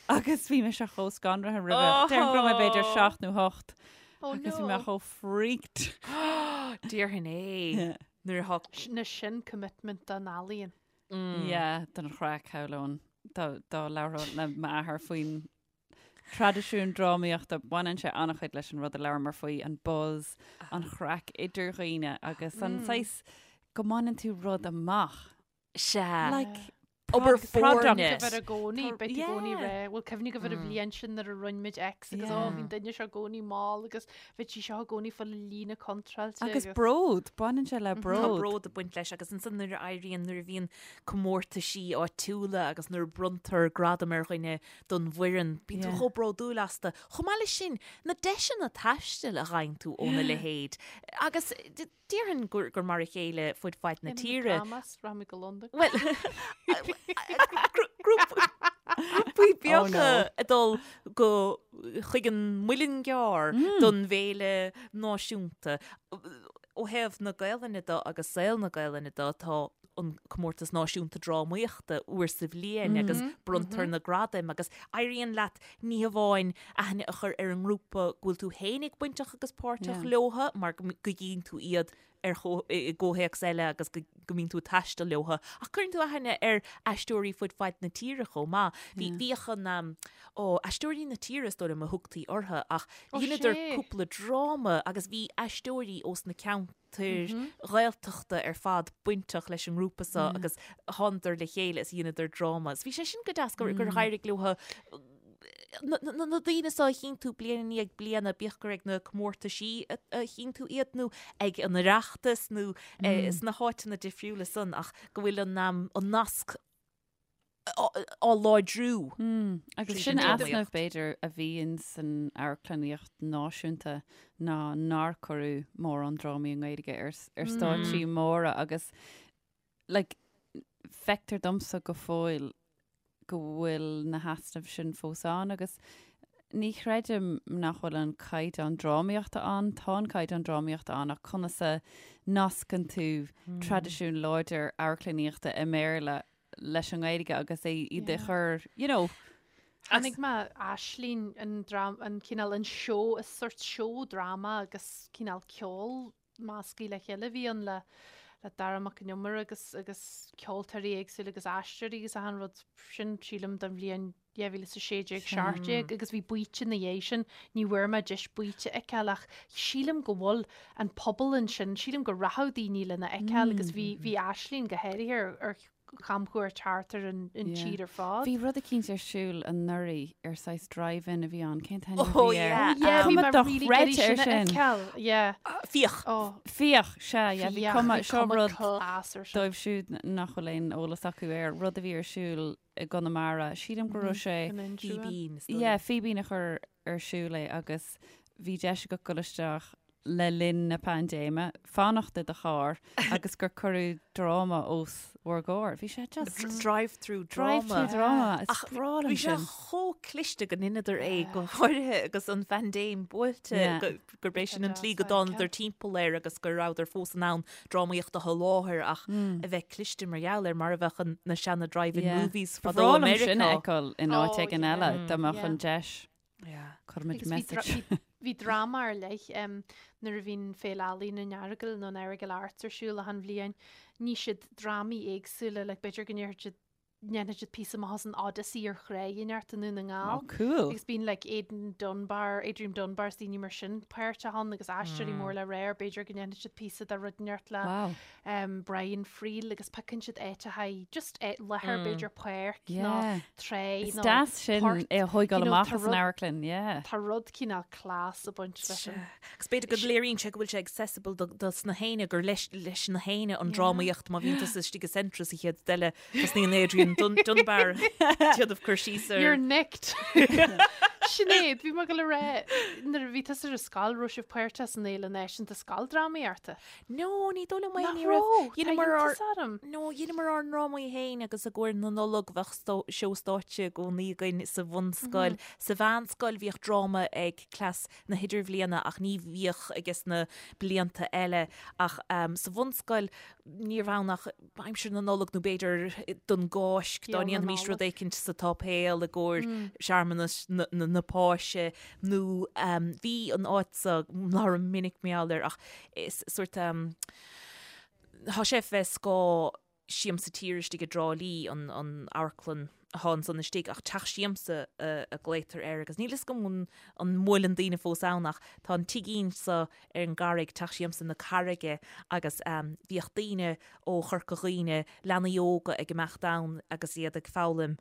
Agus bhí mise chomh scanraithe roimhe. Déarfainn go raibh mé b'fhéidir 7 nó 8 Oh agus bhí mé no. chomh freaked. Déarfainn é. Yeah. Nuair atá Sin na sin commitment don ealaíon. Yeah, don chraic shamhlóinn dá dá labhróinn le m'athair faoin traidisiún drámaíochta baineann sé an-chuid leis an rud a labhramar faoi, an buzz, an chraic idir dhaoine agus an saghas go mbaineann tú rud amach. Sea. Like Obair product. foirne. Go bhfuil i gcónaí, Tá- beidh i gcónaí yeah. ré. Bhuel, cuimhnigh go bhfuil an bhliain sin nuair a rinne muid X agus ó, Yeah. bhí an duine seo i gcónaí mall agus bhí sí seo i gcónaí fá líne contráilte. Agus bród, baineann sé le Tá bród. bród ag baint leis agus ansan nuair a éiríonn nuair a bhíonn comórtaisí áitiúla agus nuair a bronntar gradam ar dhuine don bhfoireann, bíonn tú Yeah. chomh bródúil astu. Chomh maith leis sin, na deiseanna taistil a gheibheann tú óna leithéid. Agus d- déarfainn gur gur mar a chéile fud fad na tíre. Dramas, rachaimid go Londain. Well, grúpaí beaga ag dul go chuig an Muileann gCearr don bhféile náisiúnta. Ó thaobh na Gaelainne de agus saol na Gaelainne de, tá an comórtas náisiúnta drámaíochta uair sa bhliain agus bronntar na gradaim agus éiríonn leat ní hamháin aithne a chur ar an ngrúpa go bhfuil tú fhéinig bainteach agus páirteach leotha mar go gcíonn tú iad ar i gcomhthéacs eile agus go mbíonn tú ag taisteal leotha, ach cuireann tú aithne ar aisteoirí fud fad na tíre chomh maith. Bhí bhíodh an ó, Aisteoirí na Tíre is dóigh liom a thugtaí orthu ach dheineadar cúpla dráma agus bhí aisteoirí ós na ceantair Ghaeltachta ar fad bainteach leis an ngrúpa seo agus thánadar le chéile is dheineadar dráma. Is bhí sé sin go deas gur éirigh leotha na daoine seo a chíonn tú bliain i ndiaidh bliana, bíodh gur ag na comórtaisí a chíonn tú iad nó ag an Oireachtas nó sna háiteanna difriúla san ach go bhfuil an nasc á láidriú. Agus sin easnamh b'fhéidir a bhí ins an amharclannaíocht náisiúnta ná nár cuireadh mórán drámaí i nGaeilge ar ar stáitsí móra agus like feictear domsa go fóill go bhfuil na heasnaimh sin fós ann agus ní chreidim nach bhfuil an caighdeán drámaíochta ann, tá an caighdeán drámaíochta ann ach conas a nascann tú traidisiún láidir amharclannaíochta i mBéarla leis an nGaeilge agus é iad a chur, you know. Chonaic mé Aisling, an dram, an cineál, an seó, is sórt seó dráma agus cineál ceol measctha le chéile a bhí ann le le Dara Mac Con Iomaire agus agus ceoltóirí éagsúla agus aisteoirí agus achan rud sin sílim don bhliain 2016, 17 agus bhí baoite ina dhiaidh sin, ní bhfuair mé deis baoite a fheiceáil ach sílim go bhfuil an pobal ansin, sílim go rachadh daoine lena fheiceáil agus bhí bhí Aisling go háirithe ar ar. chamchuairt thart ar an tír ar fad. Bhí rud eicínt ar siúl anuraidh ar saghas drive-in a bhí ann, cén t-ainm a Oh, bhí air? yeah. Yeah, bhí Cuma mé really ag iarraidh dochreidte ar sin a sin. fheiceáil, yeah. Fiach. Oh, Fiach, sea, yeah, bhí fiach, cuma, bhí seo cuma rud class ar sin. dóibh siúd nach bhfuil aon eolas acu air, rud a bhí ar siúl i gConamara, sílim go raibh sé, In Inse. Fíbín, is dóigh yeah, liom. Fíbín a chuir ar siúl é agus bhí deis agat dul isteach le linn na paindéime, fanacht i do charr agus gur cuireadh dráma os bhur gcomhair. Bhí sé just. Drive-through drama. Drive-through drama. Is Ach breá liom bhí sé sin. chomh cliste go ndeineadar é go háirithe agus an phaindéim buailte Yeah. gurb é sin an deas tslí go a dtánadar fheiceáil. timpeall air agus go rabhadar fós in ann drámaíocht a sholáthar ach a bheith cliste mar gheall air mar a bheadh an- na seana drive-in Yeah. movies Ba fadó bhreá i liom sin a Meiriceá. fheiceáil in áit Oh, éigin yeah. eile dá mbeadh Yeah. an deis. Yeah. Cuirfimid Agus bhí dra- message. bhí- bhí dráma ar leith em, nuair a bhíonn Féile Ealaíon an Earagail nó an Errigal Arts ar siúl achan bhliain, ní siad drámaí éagsúla, like b'fhéidir go ndéarfaidh siad ndéanfaidh siad píosa maith as an Odyssey ar thráigh inteacht i nDún na nGall. Oh, cool. Agus bíonn like Aidan Dunbar, Adrian Dunbar is daoine mar sin páirteach ann agus aisteoirí mór le rá, b'fhéidir go ndéanfaidh siad píosa de rud inteacht le Wow. um, Brian Friel agus piocann siad áiteacha just eh, láthair b'fhéidir páirc nó Yeah. trá Is nó deas sin port. é a thógáil You know, amach tá as an rud- amharclann, yeah. Tá rud cineál class ag baint leis sin. Agus b'fhéidir go léiríonn sé go bhfuil sé accessible do dos na héinne gur leis leis na héinne an drámaíocht má bhíonn tusa istigh i Centra sa chéad rud eile tosnaíonn Adrian Dun Dunbar déanamh cur síos ar You're nicked. Sinéad, bhí mé ag dul a rá nuair a bhí tusa ar scoil raibh sibh páirteach san Fhéile Náisiúnta Scoildrámaíochta. No, ní dóigh liom é, Nach ní raibh. raibh? Tá Dheineamar ár iontas orm. No, dheineamar ár ndrámaí féin agus i gcomhair na Nollag bheadh stó- seó stáitse i gcónaí againn sa bhunscoil. Sa mheánscoil bhíodh dráma ag cleas na hidirbhliana ach ní bhíodh ages na blianta eile. Ach ehm, sa bhunscoil níorbh ann ach aimsir na Nollag nó b'fhéidir don gCáisc dá Béal na ndéanfaimis rud Nollag. éicint sa tsáipéal i gcomhair searmanas na, na, na Páise nó ehm, bhí an áit so labhraím minic mar gheall air ach Is sórt tá sé fé scáth Siamsa Tíre istigh i dTrá Lí, an amharclann atá ansan istigh, ach Teach Siamsa a ghlaotar air agus níl fhios agam an an mbuaileann daoine fós ann ach tá an tigín so ar an gCarraig, Teach Siamsa na Carraige agus bhíodh daoine ó Chorca Dhuibhne, leanaí óga ag imeacht ann agus iad ag foghlaim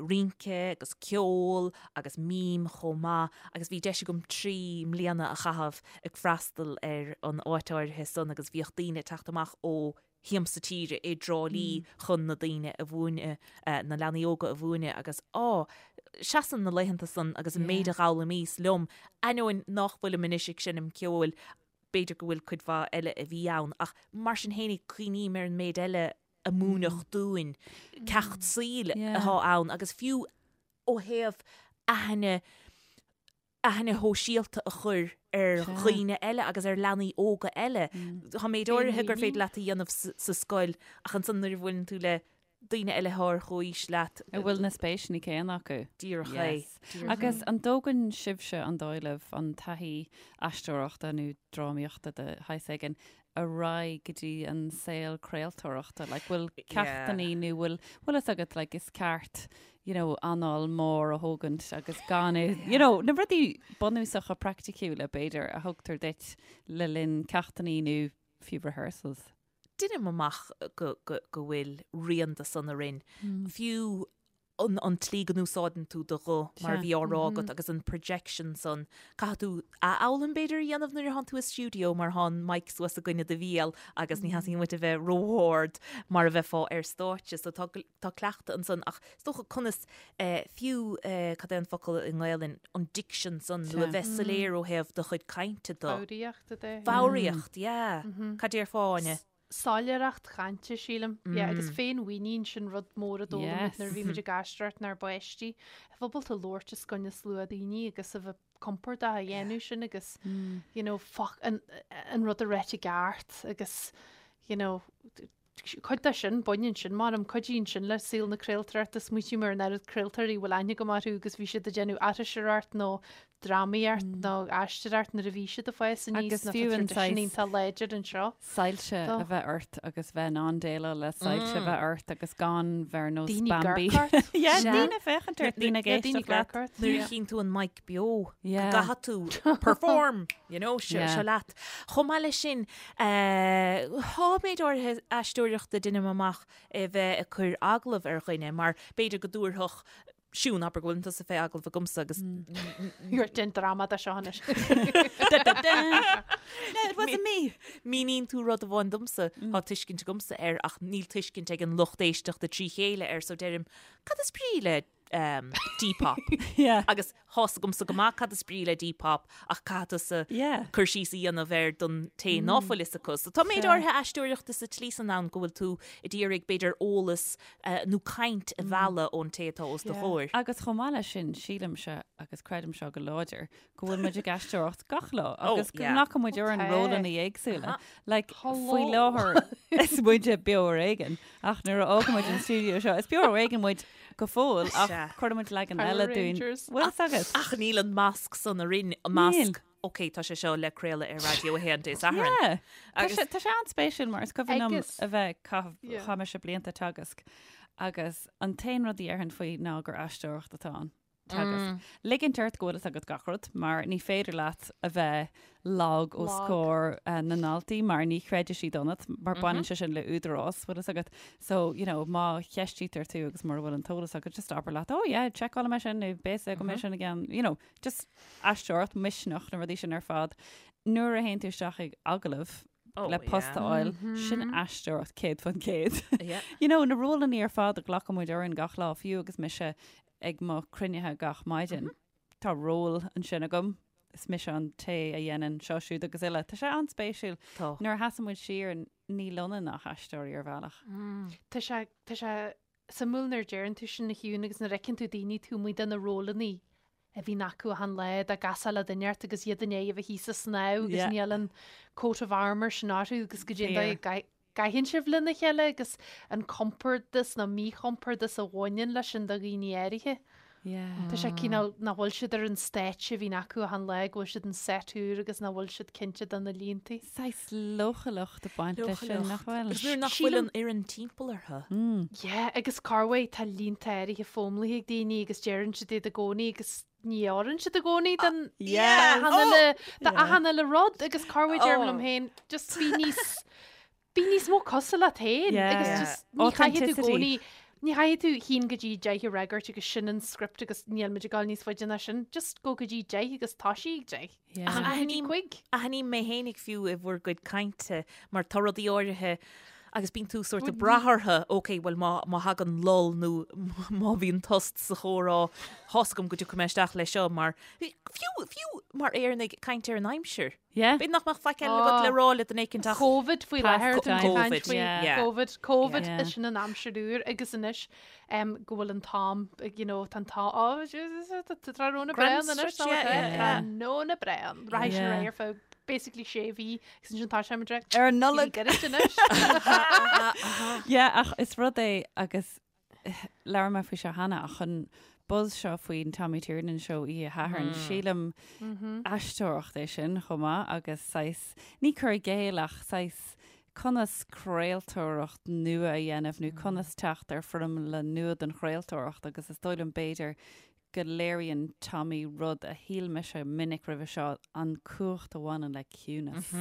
rince agus ceol agus mím chomh maith agus bhí deis agam 3 mbliana a chaitheamh ag freastal ar an áit áirithe san agus bhíodh daoine ag teacht amach ó Shiamsa Tíre i dTrá Lí chun na daoine a mhúineadh, na leanaí óga a mhúineadh agus á, seasann na laethanta san agus an méid a d'fhoghlaimíos liom, ainneoin nách bhfuilim anois ag seinm ceoil, b'fhéidir go bhfuil cuid mhaith eile a bhí ann ach mar sin fhéinig cuimhním ar an méid eile a múineadh dúinn, ceacht saoil atá ann agus fiú ó thaobh aithne, aithne shóisialta a chur ar dhaoine eile agus ar leanaí óga eile. Tá méid áirithe gur féidir leat a dhéanamh sa scoil ach ansan nuair a bhuaileann tú le daoine eile atá ar chomhaois leat. A bhfuil na spéiseanna céanna acu. Díreach é. Agus an dtógann sibhse an dóigh libh an taithí aisteoireachta nó drámaíochta de shaghas éigin ar aghaidh go dtí an saol craoltóireachta? Like, bhfuil ceachtannaí nó bhfuil, bhfuil fhios agat, like, is ceart, you know, anáil mór a thógaint agus gan é, you know, na rudaí bunúsacha praiticiúla, b'fhéidir, a thugtar duit le linn ceachtannaí nó fiú rehearsals. Deinim amach go, go, go bhfuil rian de san orainn. Fiú an an tslí go n-úsáideann tú do ghuth, mar a bhí á rá agat, agus an projection san, caithfidh tú athfhoghlaim b'fhéidir a dhéanamh nuair atánn tú i stiúideo mar thá an mic suas i gcoinne do bhéal agus ní theastaíonn uait a bheith ró-ard mar a bheifeá ar stáitse. So tá tá cleachtadh ansan ach is dócha conas fiú cad é an focal i nGaelainn, an diction san nó a bheith soiléir ó thaobh do chuid cainte de. Foghraíocht, a déarfá. Foghraíocht, yeah. Cad déarfá, Áine? soiléireacht chainte, sílim. Yeah, agus féinmhuinín, sin rud mór a d'fhoghlaim muid nuair a bhí muid ag aisteoireacht inár bpáistí. A bheith ábalta labhairt os coinne slua daoine agus a bheith compordach a dhéanamh sin agus, you know, foc, an, an rud a ráit i gceart agus, you know, cuid de sin, baineann sin, measaim, cuidíonn sin le saol na craoltóireachta. Smaoitím ar an oiread craoltóirí a bhfuil aithne agam orthu agus bhí siad ag déanamh aithris ort nó. drámaíocht nó aisteoireacht nuair a bhí siad ag fás aníos Agus nó tá fiú an traidisiún saghas- iontach láidir anseo. Soilse Do. a bheith ort agus bheith in ann déileáil le soilse a bheith ort agus gan bheith ar nós Daoine Bambi. ag amharc ort. Yeah, Sea. daoine féachaint ort, daoine ag Yeah, daoine éisteacht leat. ag amharc ort. Nuair a chíonn tú an mic beo, go Yeah. gcaithfidh tú perform, you know, seo Yeah. seo leat. Chomh maith leis sin, eh, tá méid áirithe aisteoireachta deinim amach a bheith ag cur agallamh ar dhuine mar b'fhéidir go dtabharfadh Siún, abair go bhfuil tusa fé agallamh agamsa agus You're déan dráma de seo anois. No, it wasn't me. Míníonn tú rud amháin domsa, tá tuiscint agamsa air ach níl tuiscint ag an lucht éisteachta trí chéile air so deirim, cad is brí le um, Depop? Yeah. Agus tá's agamsa go maith cad is brí le Depop ach caithfidh tusa Yeah. cur síos a dhéanamh air don té ná fuil fhios acu. So tá méid áirithe aisteoireachta sa tslí san ann go bhfuil tú ag iarraidh b'fhéidir eolas nó caint a mhealladh ón té atá os do chomhair. Agus chomh maith leis sin, sílimse, agus creidim seo go láidir, go bhfuil muid ag aisteoireacht gach lá agus go nglacann muid orainn rólanna éagsúla. Like, faoi láthair is muide Beo Ar Éigean, ach nuair a fhágann muid an stiúideo seo, is Beo Ar Éigean muid go fóill ach cuireann muid leagan eile dúinn. Bhfuil fhios agat? Ach níl an masc san orainn, an masc, ok, tá sé seo le craoladh ar Raidió 1 Dé Sathairn. Yeah. Tá sé, tá sé an-spéisiúil mar is cuimhin liom a bheith caitheamh, chaith mise blianta ag teagasc agus an t-aon rud a dhéarfainn faoi ná gur aisteoireacht atá ann. Teagasc. Ligint ort go bhfuil fhios agat gach rud mar ní féidir leat a bheith lag os comhair na ndaltaí mar ní chreidfidh siad ionat mar baineann sé sin le údarás, bhfuil fhios agat. So, you know, má cheistítear tú agus mura bhfuil an t-eolas agat, just abair leat, oh yeah, seiceálfaidh mé sin nó beidh fhios agam é sin again, you know, just aisteoireacht, misneach, na rudaí sin ar fad. Nuair a théann tú isteach ag agallamh Oh, le post a yeah. fháil, sin aisteoireacht 100%. Yeah. You know, na rólanna ar fad a ghlacann muid orainn gach lá, fiú agus mise ag mo chruinnithe gach maidin. Tá ról ansin agam, is mise an té a dhéanann seo, siúd agus uile. Tá sé an-spéisiúil. Tá. Nuair a sheasann muid siar, níl ionainn ach aisteoirí ar bhealach. Tá sé, tá sé suimiúil nuair a deireann tú sin a Shiún agus nuair a fheiceann tú daoine taobh amuigh de na rólanna a bhíonn acu achan lá dá gcasfá le duine ort agus iad i ndiaidh a bheith thíos ag snámh agus Yeah. níl an coat of armour sin orthu agus goidé an dóigh Fair. a gcaitheann sibh lena chéile agus an compordas nó míchompordas a bhaineann leis sin do dhaoine áirithe. Yeah. Tá sé cineál nach bhfuil siad ar an stáitse a bhíonn acu achan lá, go bhfuil siad an set úr agus nach bhfuil siad cinnte de na línte. Saghas leochaileacht ag baint leis sin, nach bhfuil? Agus nuair nach bhfuil an fhoireann timpeall orthu. Yeah, agus corruair tá línte áirithe foghlamtha ag daoine agus deireann siad iad i gcónaí agus ní oireann siad i gcónaí don Yes. achan uile do achan uile rud agus corruair deirim liom féin just bí níos Bí níos mó cosúil leat féin agus just ní chaithfidh tú i gcónaí, ní chaithfidh tú haon go dtí deich a fhreagairt agus sin an script agus níl muid ag dul níos faide ná sin. Just go go dtí deich agus toisigh ag deich. Ach Go dtí cuig. Aithním mé fhéinig fiú i bhur gcuid cainte mar tá rudaí áirithe agus bíonn tú sórt ag brath orthu, ok, bhuel má má thagann lull nó má bhíonn tost sa chomhrá, tá's agam go dtiocfaidh mé isteach leis seo mar, fiú, fiú mar Éireannaigh ag caint ar an aimsir. Yeah. B'fhéidir nach mbeadh faic eile agat le rá le duine éicint ach Covid faoi láthair Past tá muid ag caint Covid, faoi yeah. Covid, Covid Yeah. is sin an aimsir úr agus anois um, go bhfuil an t-am you know, tá an t-am oh, tá tráthnóna Grand breá anois stretch, yeah, yeah, yeah. Tráthnóna breá rachaidh sin Yeah. ar aghaidh ar feadh basically sé mhí agus ansin tá sé mar Ar an Nollaig. Get it anois. Yeah, ach is rud é agus Labhair mé faoi seo cheana ach an buzz seo faoin Tommy Tiernan show oíche Shathairn, sílim aisteoireacht é sin chomh maith agus saghas, ní cur i gcéill ach saghas conas craoltóireacht nua a dhéanamh nó conas teacht ar foirmle nua don chraoltóireacht agus is dóigh liom b'fhéidir go léiríonn Tommy rud a shíl mise minic roimhe seo, an cumhacht a bhaineann le ciúnas.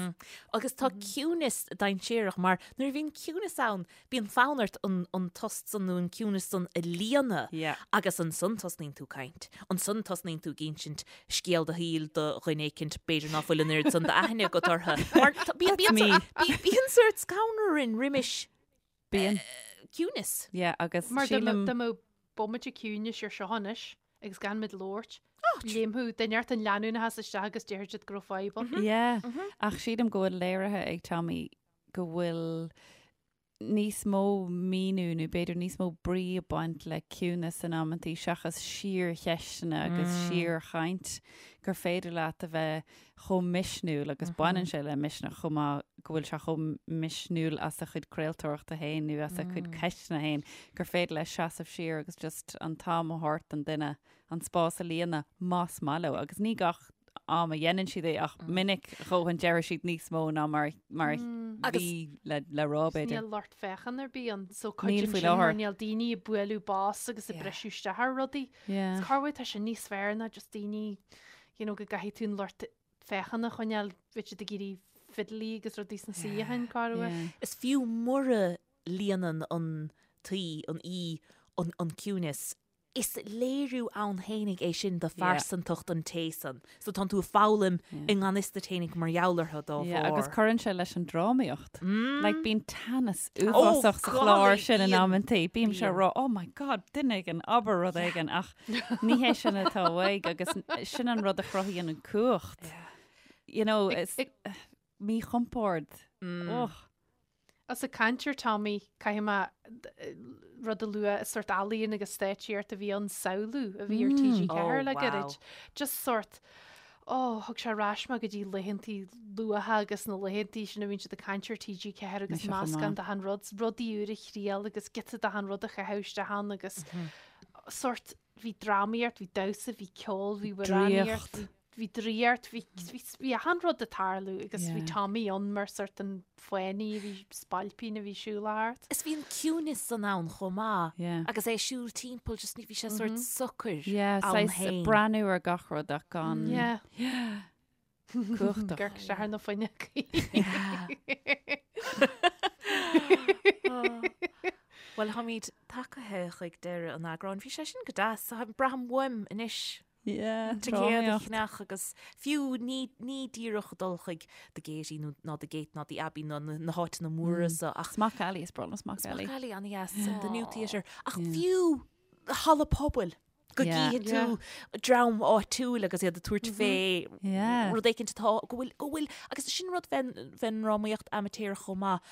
Agus tá ciúnas dainséarach mar nuair a bhíonn ciúnas ann, bíonn fonn ort an an tost san nó an ciúnas san a líonadh Yeah. agus ansan tosnaíonn tú caint. Ansan tosnaíonn tú ag insint scéal do shaoil do dhuine éicint b'fhéidir ná fuil an oiread san d'aithne agat orthu. Mar tá- bíonn That's bíonn me. bíonn bíonn sórt scanradh orainn roimis Bíonn. ciúnas. Yeah, agus Mar dá sílim. mbeadh bomaite ciúnais ar seo anois agus gan muid labhairt, léimfeadh duine inteacht an leanúnachas isteach agus déarfaidh siad go raibh fadhb ann. Yeah, ach sílim go bhfuil léirithe ag Tommy go bhfuil níos mó míniú nó b'fhéidir níos mó brí ag baint le ciúnas in amantaí seachas síorcheisteanna agus síorchaint gur féidir leat a bheith chomh misniúil agus baineann sé le misneach chomh maith go bhfuil sé chomh misniúil as a chuid craoltóireachta féin nó as a chuid ceisteanna féin gur féidir leis seasamh siar agus just an t-am a thabhairt don duine an spás a líonadh más maith leo agus ní gach am a dhéanann siad é ach minic a dhóthain deireann siad níos mó ná mar mar a bhí le le rá b'fhéidir. Níl lucht féachana ar bith ann so cuidíonn sin mar níl daoine ag bualadh bos agus ag briseadh isteach ar rudaí. Is corruair tá sin níos fearr ná just daoine you know go gcaithfidh tú an lucht féachana a choinneáil bheadh siad ag iarraidh fidlí agus rudaí sna suíocháin corruair. Is fiú mura líonann an t-aoi, an aoi, an ciúineas Is léiriú ann fhéinig é sin de phearsantacht an té san. So tánn tú ag foghlaim i ngan fhios duit fhéinig mar gheall orthu dá bharr. Agus cuireann sé leis an drámaíocht. Like bíonn teannas uafásach sa chlár sin in amantaí. Bímse ag rá, oh my god, duine éigin, abair rud éigin ach ní hé sin atá uaidh agus sin an rud a chruthaíonn an cumhacht. You know, is míchompord. Och. Is ag caint ar Tommy, caithfidh mé rud a lua, is sórt ealaíon agus stáitsíocht a bhí ann, Samhlú a bhí ar TG4 le gairid. Just sórt, oh, thug sé ar ais mé go dtí laethantaí luatha agus na laethantaí sin a bhíonn siad ag caint ar TG4 agus meascán d'achan rud, rudaí úr a thriail agus giota d'achan rud a chaitheamh isteach ann agus sórt, bhí drámaíocht, bhí damhsa, bhí ceol, bhí amhránaíocht, bhí bhí draíocht, bhí, bhí, bhí achan rud ag tarlú agus bhí Tommy ann mar sort an fánaí, bhí spailpín a bhí siúl thart. Is bhí an ciúnas san ann chomh maith Yeah. agus é ag siúl timpeall just ní bhí sé sort socair Yeah, ann saghas féin. breathnú ar gach rud ach gan Yeah. cumhachtach. Ag amharc isteach ar na fuinneogaí. Bhuel, táimid tagtha chuig deireadh an eagráin. Bhí sé sin go deas. Braithim uaim anois. Yeah, Ticéad a cheannach agus fiú ní, ní díreach dul chuig The Gaiety nó ná The Gate ná The Abbey ná na, na háiteanna móra so ach Smock Alley, is breá liom Smock Alley. Smock Alley an-dheas, The New Theatre. Ach fiú halla pobail go Yeah. gcífidh tú dream áitiúil agus iad ag tabhairt fé Yeah. rud éicint atá go bhfuil, go bhfuil, agus sin rud fén, fén ndrámaíocht amaitéarach chomh maith.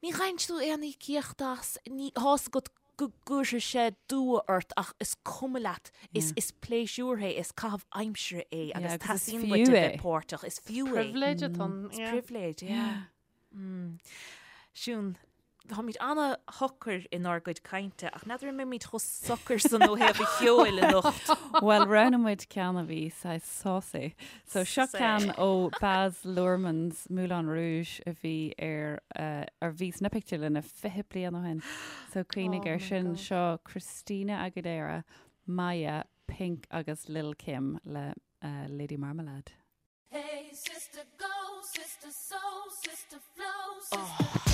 Ní fhaigheann tú aon íocaíocht as, ní, tá fhios agat go gcuirfidh sé dua ort ach is cuma leat, is, is pléisiúr é, is caitheamh aimsire é agus agus is teastaíonn fiú uait a é. bheith páirteach, is fiú é. Pribhléid atá ann, Is yeah. pribhléid, yeah. Mm. Siún, táimid ana-shocair inár gcuid cainte ach n'fheadar an mbeimid chomh socair san ó thaobh an cheoil anocht. Bhuel, roghnaigh muid ceann a bhí saghas saucy. So seo ceann ó Baz Luhrmann's Moulin Rouge a bhí ar ar bhí sna pictiúrlanna 20 bliain ó shin. So cuimhnigh ar sin. Seo Christina Aguilera, Mya, Pink agus Lil Kim le Lady Marmalade. Hey sister go, sister soul, sister flow, sister.